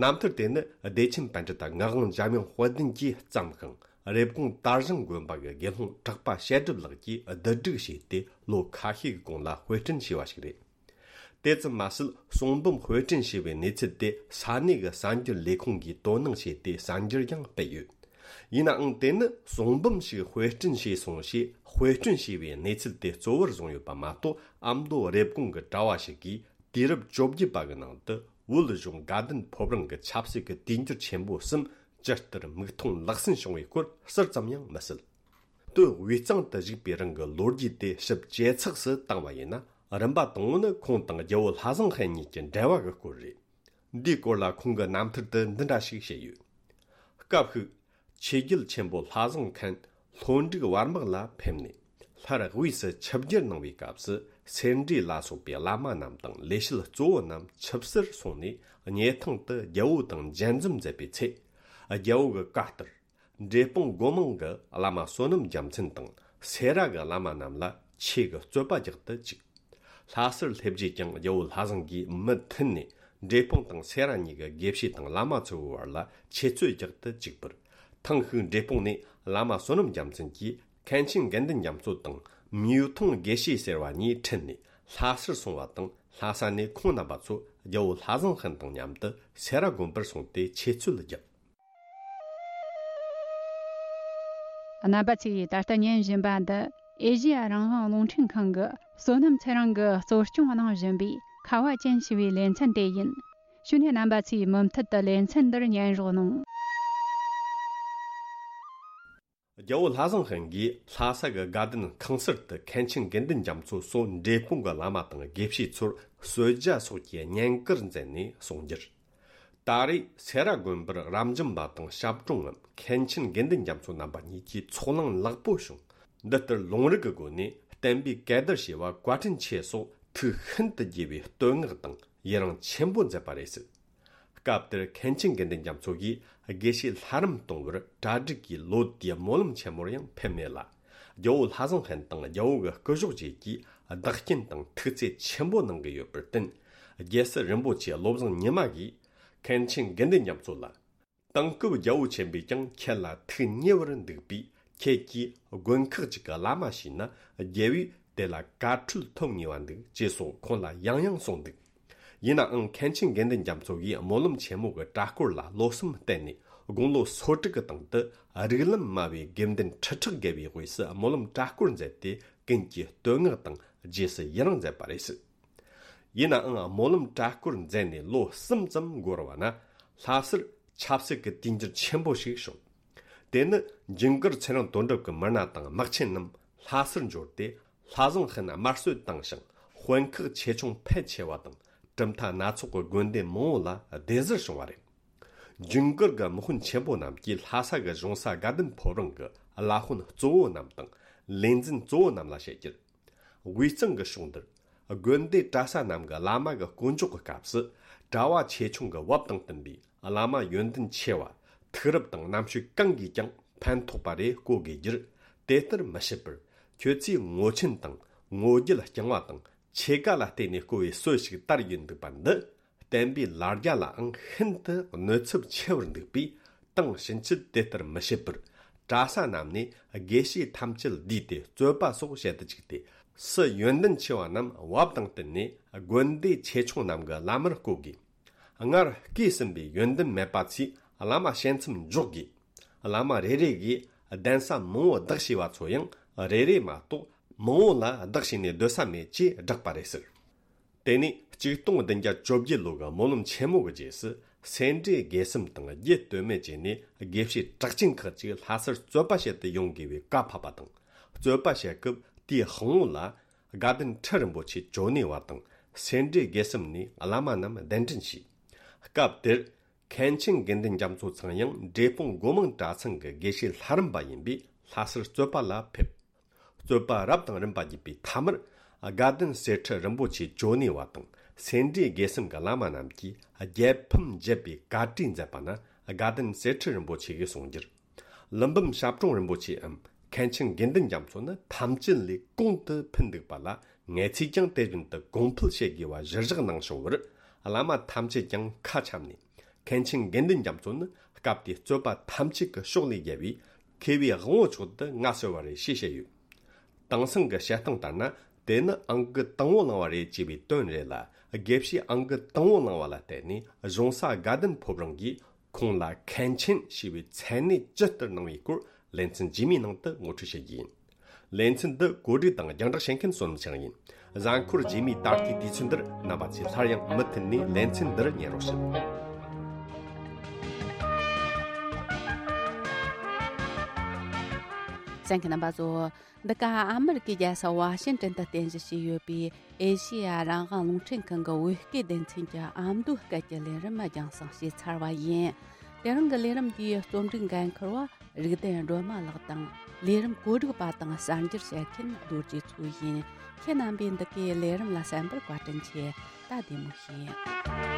རྣམ་ཐར་དེ་ནི་བདེ་ཆེན་པཎྜི་ཏ་ངག་དབང་འཇམ་དབྱངས་དཔལ་ལྡན་གྱིས་བརྩམས་ཤིང་། རེབ་གོང་དར་ཞིང་དགོན་པ་གི་དགེ་སློང་གྲགས་པ་བཤད་སྒྲུབ་ལགས་ཀྱིས་བསྡུ་སྒྲིག་བྱས་ཏེ། ལོ་ཁ་ཤས་ཀྱི་གོང་ལ་དཔེ་སྐྲུན་བྱས་པ་ཞིག་རེད། དེ་ཙམ་མ་ཟད། གསུང་འབུམ་དཔེ་སྐྲུན་བྱས་པའི་གནས་ཚུལ་དེ་ས་གནས་ཀྱི་གསར་འགྱུར་ལས་ཁུངས་ཀྱིས་དོ་སྣང་བྱས་ཏེ་གསར་འགྱུར་ཡང་སྤེལ་ཡོད། ཡིན་ནའང་། དེ་ནི་གསུང་འབུམ་ཞིག་དཔེ་སྐྲུན་བྱས་སོང་ཞེས་དཔེ་སྐྲུན་བྱས་པའི་གནས་ཚུལ་དེ་གཙོ་བོར་བཟུང་ཡོད་པ་མ་གཏོགས། ཨ་མདོ་རེབ་གོང་གི་གྲྭ་བ་ཞིག་གིས་དུས་རབས་བཅོ་བརྒྱད་པ་གི་ནང་དུ་བོད་གཞུང་དགའ་ལྡན་ཕོ་བྲང་གི་ཆབ་སྲིད་ཀྱི་དུས་འགྱུར་ཆེན་པོ་གསུམ་ཇི་ལྟར་མིག་མཐོང་ལག་ཟིན་བྱུང་བའི་སྐོར་ཟུར་ཙམ་ཡང་མི་གསལ། སྟོད་དབུས་གཙང་དུ་བཞུགས་པའི་རིང་གི་ལོ་རྒྱུས་དེ་ཞིབ་ཇེ་ཚགས་སུ་བཏང་བ་ཡིན་ན། རིམ་པ་དང་པོ་ནི་ཁོང་དང་རྒྱལ་བོ་ལྷ་བཟང་ཧན་གཉིས་ཀྱི་འབྲེལ་བ་གི་སྐོར་རེད། འདིའི་སྐོར་ལ་ཁོང་གི་རྣམ་ཐར་དུ་འདི་འདྲ་ཞིག་བཤད་ཡོད། སྐབས་ཤིག་ཆོས་རྒྱལ་ཆེན་པོ་ལྷ་བཟང་ཧན་ལྷོ་འབྲུག་བར་དམག་ལ་ཕེབས་ནས། སླར་དབུས་སུ་ཆིབས་བསྒྱུར་གནང་བའི་སྐབས་སུ། སེ་འབྲས་ལ་སོགས་པའི་བླ་མ་རྣམས་དང་ལས་བྱེད་གཙོ་བོ་རྣམས་ཆིབས་སར་སོང་ནས། སྙེ་ཐང་དུ་རྒྱལ་བོ་དང་མཇལ་འཛོམས་མཛད་པའི་ཚེ། རྒྱལ་བོ་གི་བཀའ་ལྟར། འབྲས་སྤུངས་སྒོ་མང་གི་བླ་མ་བསོད་ནམས་རྒྱལ་མཚན་དང་སེ་ར་གི་བླ་མ་རྣམས་ལ་ཆོས་ཀྱི་རྩོད་པ་རྒྱག་ཏུ་བཅུག། ལྷ་སར་སླེབས་རྗེས་ཀྱང་རྒྱལ་བོ་ལྷ་བཟང་གིས་མུ་མཐུད་ནས་འབྲས་སྤུངས་དང་སེ་ར་གཉིས་ཀྱི་དགེ་བཤེས་དང་བླ་མ་ཚོའི་བར་ལ་ཆོས་རྩོད་རྒྱག་ཏུ་བཅུག་པར། ཐེངས་ཤིག་འབྲས་སྤུངས་ནས་བླ་མ་བསོད་ནམས་རྒྱལ་མཚན་གྱིས་མཁན་ཆེན་དགེ་འདུན་རྒྱ་མཚོ་དང་མིའུ་ཐུང་དགེ་བཤེས་ཟེར་བ་གཉིས་ཁྲིད་ནས་ལྷ་སར་སོང་བ་དང་། ལྷ་ས་ནས་ཁོང་རྣམ་པ་ཚོ་རྒྱལ་བོ་ལྷ་བཟང་ཧན་དང་མཉམ་དུ་སེ་ར་དགོན་པར་སོང་སྟེ་ཆོས་རྩོད་བརྒྱབ། རྣམ་པ་ཚོས་ད་ལྟ་ཉན་བཞིན་པ་འདི་ཨེ་ཤེ་ཡ་རང་དབང་རླུང་འཕྲིན་ཁང་གི་བསོད་ནམས་ཚེ་རིང་གིས་གཙོ་སྐྱོང་གནང་བཞིན་པའི་ཁ་བ་ཅན་ཞེས་པའི་ལེ་ཚན་དེ་ཡིན། ཞུ་ནས་རྣམ་པ་ཚོས་མུ་མཐུད་དུ་ལེ་ཚན་འདིར་ཉན་རོགས་གནང་། རྒྱལ་བོ་ལྷ་བཟང་ཧན་གྱིས་ལྷ་ས་གི་དགའ་ལྡན་ཁང་གསར་དུ་མཁན་ཆེན་དགེ་འདུན་རྒྱ་མཚོ་སོགས་འབྲས་སྤུངས་ཀྱི་བླ་མ་དང་དགེ་བཤེས་ཚོར་གསོལ་ཇ་སོགས་ཀྱི་བསྙེན་བཀུར་མཛད་ནས་གསུང་རྒྱུར། ད་རེས་སེ་ར་དགོན་པར་རབ་འབྱམས་པ་དང་ཞབས་དྲུང་ངམ་མཁན་ཆེན་དགེ་འདུན་རྒྱ་མཚོ་རྣམ་པ་གཉིས་ཀྱི་ཚོགས་ལངས་ལེགས་པོ་བྱུང་། འདི་ལྟར་ལུང་རིགས་ཀྱི་སྒོ་ནས་བསྟན་པའི་གད་བདར་བྱས་པ་བཀའ་དྲིན་ཆེ་སོགས་ཐུགས་ཤིན་ཏུ་དགྱེས་པའི་བསྟོད་བསྔགས་དང་ཡི་རང་ཆེན་པོ་མཛད་པ་རེད་ཟེར། སྐབས་དེར་མཁན་ཆེན་དགེ་འདུན་རྒྱ་མཚོ་གིས་དགེ་བཤེས་ལྷ་རམས་གཏོང་བར་གྲ་སྒྲིག་གིས་ལོ་དེའི་སྨོན་ལམ་ཆེན་མོར་ཡང་ཕེབས་མེད་ལ། རྒྱལ་བོ་ལྷ་བཟང་ཧན་དང་རྒྱལ་བོ་གི་སྐུ་གཞོགས་བཅས་ཀྱིས་བདག་རྐྱེན་དང་ཐུགས་བརྩེ་ཆེན་པོ་གནང་གི་ཡོད་པར་བརྟེན། རྒྱལ་སྲས་རིན་པོ་ཆེ་བློ་བཟང་ཉི་མ་གིས་མཁན་ཆེན་དགེ་འདུན་རྒྱ་མཚོ་ལ། དེང་སྐབས་རྒྱལ་བོ་ཆེན་པོས་ཀྱང་ཁྱེད་ལ་ཐུགས་མཉེས་པར་འདུག་པས། ཁྱེད་ཀྱིས་དགོན་ཁག་ཅིག་གི་བླ་མ་བྱས་ན་རྒྱལ་བོས་དེ་ལ་བཀའ་འཁྲོལ་ཐོབ་ངེས་པ་འདུག་ཅེས་སོགས་ཁོང་ལ་ཡང་ཡང་གསུངས་འདུག། ཡིན་ནའང་མཁན་ཆེན་དགེ་འདུན་རྒྱ་མཚོ་གིས་སྨོན་ལམ་ཆེན་མོ་གི་གྲྭ་སྐོར་ལ་བློ་སེམས་གཏད་ནས་དགུང་ལོ་སོ་དྲུག་གི་སྟེང་དུ་རིགས་ལམ་དམའ་བའི་དགེ་འདུན་ཁྲི་ཕྲག་བརྒལ་བའི་དབུས་སུ་སྨོན་ལམ་གྲྭ་སྐོར་མཛད་དེ་ཀུན་གྱིས་བསྟོད་བསྔགས་དང་རྗེས་སུ་ཡི་རང་མཛད་པ་རེད་ཟེར། ཡིན་ནའང་སྨོན་ལམ་གྲྭ་སྐོར་མཛད་ནས་ལོ་གསུམ་ཙམ་འགོར་བ་ན་ལྷ་སར་ཆབ་སྲིད་ཀྱི་དུས་འགྱུར་ཆེན་པོ་ཞིག་བྱུང་། དེ་ནི་ཇུན་གར་ཚེ་རིང་དོན་གྲུབ་ཀྱི་མི་སྣ་དང་དམག་ཆེན་རྣམས་ལྷ་སར་འབྱོར་ཏེ་ལྷ་བཟང་ཧན་དམར་གསོད་བཏང་ཞིང་དཔོན་ཁག་ཆེ་ཆུང་ཕལ་ཆེ་བ་དང་གྲུབ་མཐའ་སྣ་ཚོགས་ཀྱི་དགོན་སྡེ་མང་བོ་ལ་སྡེ་གཟར་བྱུང་བ་རེད། ཇུན་གར་གྱི་དམག་དཔོན་ཆེན་པོ་རྣམས་ཀྱིས་ལྷ་ས་གི་གཞུང་ས་དགའ་ལྡན་ཕོ་བྲང་གི་བླ་དཔོན་གཙོ་བོ་རྣམས་དང་ལས་འཛིན་གཙོ་བོ་རྣམས་ལ་བཤད་རྒྱུར། དབུས་གཙང་གི་ཕྱོགས་འདིར་དགོན་སྡེ་གྲྭ་ས་རྣམས་ཀྱི་བླ་མ་གི་དཀོན་མཆོག་གི་སྐབས་སུ་གྲྭ་བ་ཆེ་ཆུང་གི་བབ་དང་བསྟུན་པའི་བླ་མ་ཡོན་ཏན་ཆེ་བ་ཐུགས་རབ་དང་རྣམ་དཔྱོད་གང་གིས་ཀྱང་ཕན་ཐོགས་པ་རེ་བསྐོ་དགོས་རྒྱུར། དེ་ལྟར་མི་བྱེད་པར་ཁྱོད་ཚོས་ངོ་ཆེན་དང་ངོ་རྒྱལ་རྐྱང་བ་དང་ཆེ་ག་ལ་བརྟེན་ནས་བསྐོ་བའི་སྲོལ་ཞིག་དར་ཡོད་འདུག་པ་འདི། བསྟན་པའི་ལ་རྒྱ་ལའང་ཤིན་ཏུ་གནོད་ཚབས་ཆེ་བར་འདུག་པས། དེང་ཕྱིན་ཆད་དེ་ལྟར་མི་བྱེད་པར། གྲྭ་ས་རྣམས་ནས་དགེ་བཤེས་ཐམས་ཅད་བསྡུས་ཏེ་རྩོད་པ་སོགས་བྱེད་དུ་བཅུག་སྟེ། སུ་ཡོན་ཏན་ཆེ་བ་རྣམས་བབ་དང་བསྟུན་ནས་དགོན་སྡེ་ཆེ་ཆུང་རྣམས་ཀྱི་བླ་མར་བསྐོ་དགོས། སྔར་བསྐོས་ཟིན་པའི་ཡོན་ཏན་མེད་པ་ཚོས་བླ་མ་ཞལ་མཚམས་འཇོག་དགོས། བླ་མ་རེ་རེ་གིས་གདན་ས་མང་བོ་བདག་བྱས་པ་ཚོ་ཡང་རེ་རེ་མ་གཏོགས་མང་བོ་ལ་བདག་བྱས་ནས་སྡོད་ས་མེད་ཅེས་བསྒྲགས་པ་རེད་ཟེར། དེ་ནས་ཆིག་སྟོང་བདུན་བརྒྱ་བཅོ་བརྒྱད་ལོ་གི་སྨོན་ལམ་ཆེན་མོ་གི་རྗེས་སུ་སེ་འབྲས་དགེ་གསུམ་དང་རྒྱུད་སྟོད་སྨད་བཅས་ནས་དགེ་བཤེས་གྲགས་ཅན་ཁག་ཅིག་ལྷ་སར་རྩོད་པ་བྱེད་དུ་ཡོང་དགོས་པའི་བཀའ་ཕབ་པ་དང་། རྩོད་པ་བྱེད་སྐབས་དེའི་དཔང་པོ་ལ་དགའ་ལྡན་ཁྲི་རིན་པོ་ཆེ་ཇོ་ནེ་བ་དང་སེ་འབྲས་དགེ་གསུམ་ནས་བླ་མ་རྣམས་གདན་འདྲེན་བྱས། སྐབས་དེར་མཁན་ཆེན་དགེ་འདུན་རྒྱ་མཚོ་ཚང་ཡང་འབྲས་སྤུངས་སྒོ་མང་གྲྭ་ཚང་གི་དགེ་བཤེས་ལྷ་རམས་པ་ཡིན་པས་ལྷ་སར་རྩོད་པ་ལ་ཕེབས། རྩོད་པ་རབ་དང་རིམ་པ་བརྒྱུད་པའི་མཐའ་མར་དགའ་ལྡན་གསེར་ཁྲི་རིན་པོ་ཆེ་ཇོ་ནེ་བ་དང་སེ་འབྲས་དགེ་གསུམ་གྱི་བླ་མ་རྣམས་ཀྱིས་རྒྱལ་ཕམ་བརྒྱབ་པའི་བཀའ་གྲོས་མཛད་པ་ན་དགའ་ལྡན་གསེར་ཁྲི་རིན་པོ་ཆེ་གིས་གསུང་རྒྱུར། ཀླུ་འབུམ་ཞབས་དྲུང་རིན་པོ་ཆེའམ་མཁན་ཆེན་དགེ་འདུན་རྒྱ་མཚོ་ནི་ཐམས་ཅད་ལས་གོང་དུ་ཕུད་འདུག་པ་ལ་ངེད་ཚོས་ཀྱང་དེ་བཞིན་དུ་གོང་འཕེལ་བྱེད་དགོས་པ་གཞིར་བཞག་གནང་བྱུང་བར། བླ་མ་ཐམས་ཅད་ཀྱང་ཁ་འཆམ་ནས། མཁན་ཆེན་དགེ་འདུན་རྒྱ་མཚོ་ནི་སྐབས་དེའི་རྩོད་པ་ཐམས་ཅད་ཀྱི་ཕྱོགས་ལས་རྒྱལ་བའི་མཁས་པའི་དབང་པོ་མཆོག་ཏུ་མངའ་གསོལ་བ་རེད་ཞེས་བཤད་ཡོད། དེང་སང་གི་བཤད་སྟངས་ལྟར་ན་དེ་ནི་ཨང་ཀི་དང་པོ་བླངས་པ་རེད་ཅེས་པའི་དོན་རེད་ལ། དགེ་བཤེས་ཨང་ཀི་དང་པོ་བླངས་པ་ལ་བརྟེན་ནས་གཞུང་ས་དགའ་ལྡན་ཕོ་བྲང་གིས་ཁོང་ལ་མཁན་ཆེན་ཞེས་པའི་མཚན་གནས་ཇི་ལྟར་གནང་བའི་སྐོར་ལེ་ཚན་རྗེས་མའི་ནང་དུ་ངོ་སྤྲོད་བྱེད་རྒྱུ་ཡིན། ལེ་ཚན་འདི་གོ་སྒྲིག་དང་རྒྱང་བསྒྲགས་བྱེད་མཁན་བསོད་ནམས་ཚེ་རིང་ཡིན། གཟའ་འཁོར་རྗེས་མའི་ད་ལྟའི་དུས་ཚོད་འདིར་རྣམ་པ་ཚོས་སླར་ཡང་མུ་མཐུད་ནས་ལེ་ཚན་འདིར་ཉན་རོགས་ཞུ། གསན་མཁན་རྣམ་པ་ཚོ། འདི་ག་ཨ་མི་རི་ཀའི་རྒྱལ་ས་ཝ་ཤིང་ཏོན་དུ་རྟེན་གཞི་བྱས་ཡོད་པའི་ཨེ་ཤེ་ཡ་རང་དབང་རླུང་འཕྲིན་ཁང་གི་བོད་སྐད་སྡེ་ཚན་གྱི་ཨ་མདོའི་སྐད་ཀྱི་ལས་རིམ་རྒྱང་སྲིང་བྱས་ཚར་བ་ཡིན། དེ་རིང་གི་ལས་རིམ་འདིའི་རྩོམ་སྒྲིག་འགན་འཁུར་བ་རིག་ལྡན་སྒྲོལ་མ་ལགས་དང་། ལས་རིམ་གོ་སྒྲིག་པ་དང་གསར་འགྱུར་བཤད་མཁན་རྡོ་རྗེ་མཚོ་ཡིན། ཁྱེད་རྣམ་པས་འདི་གའི་ལས་རིམ་ལ་གསན་པར་བཀའ་དྲིན་ཆེ། ད་བདེ་མོ་བྱོས།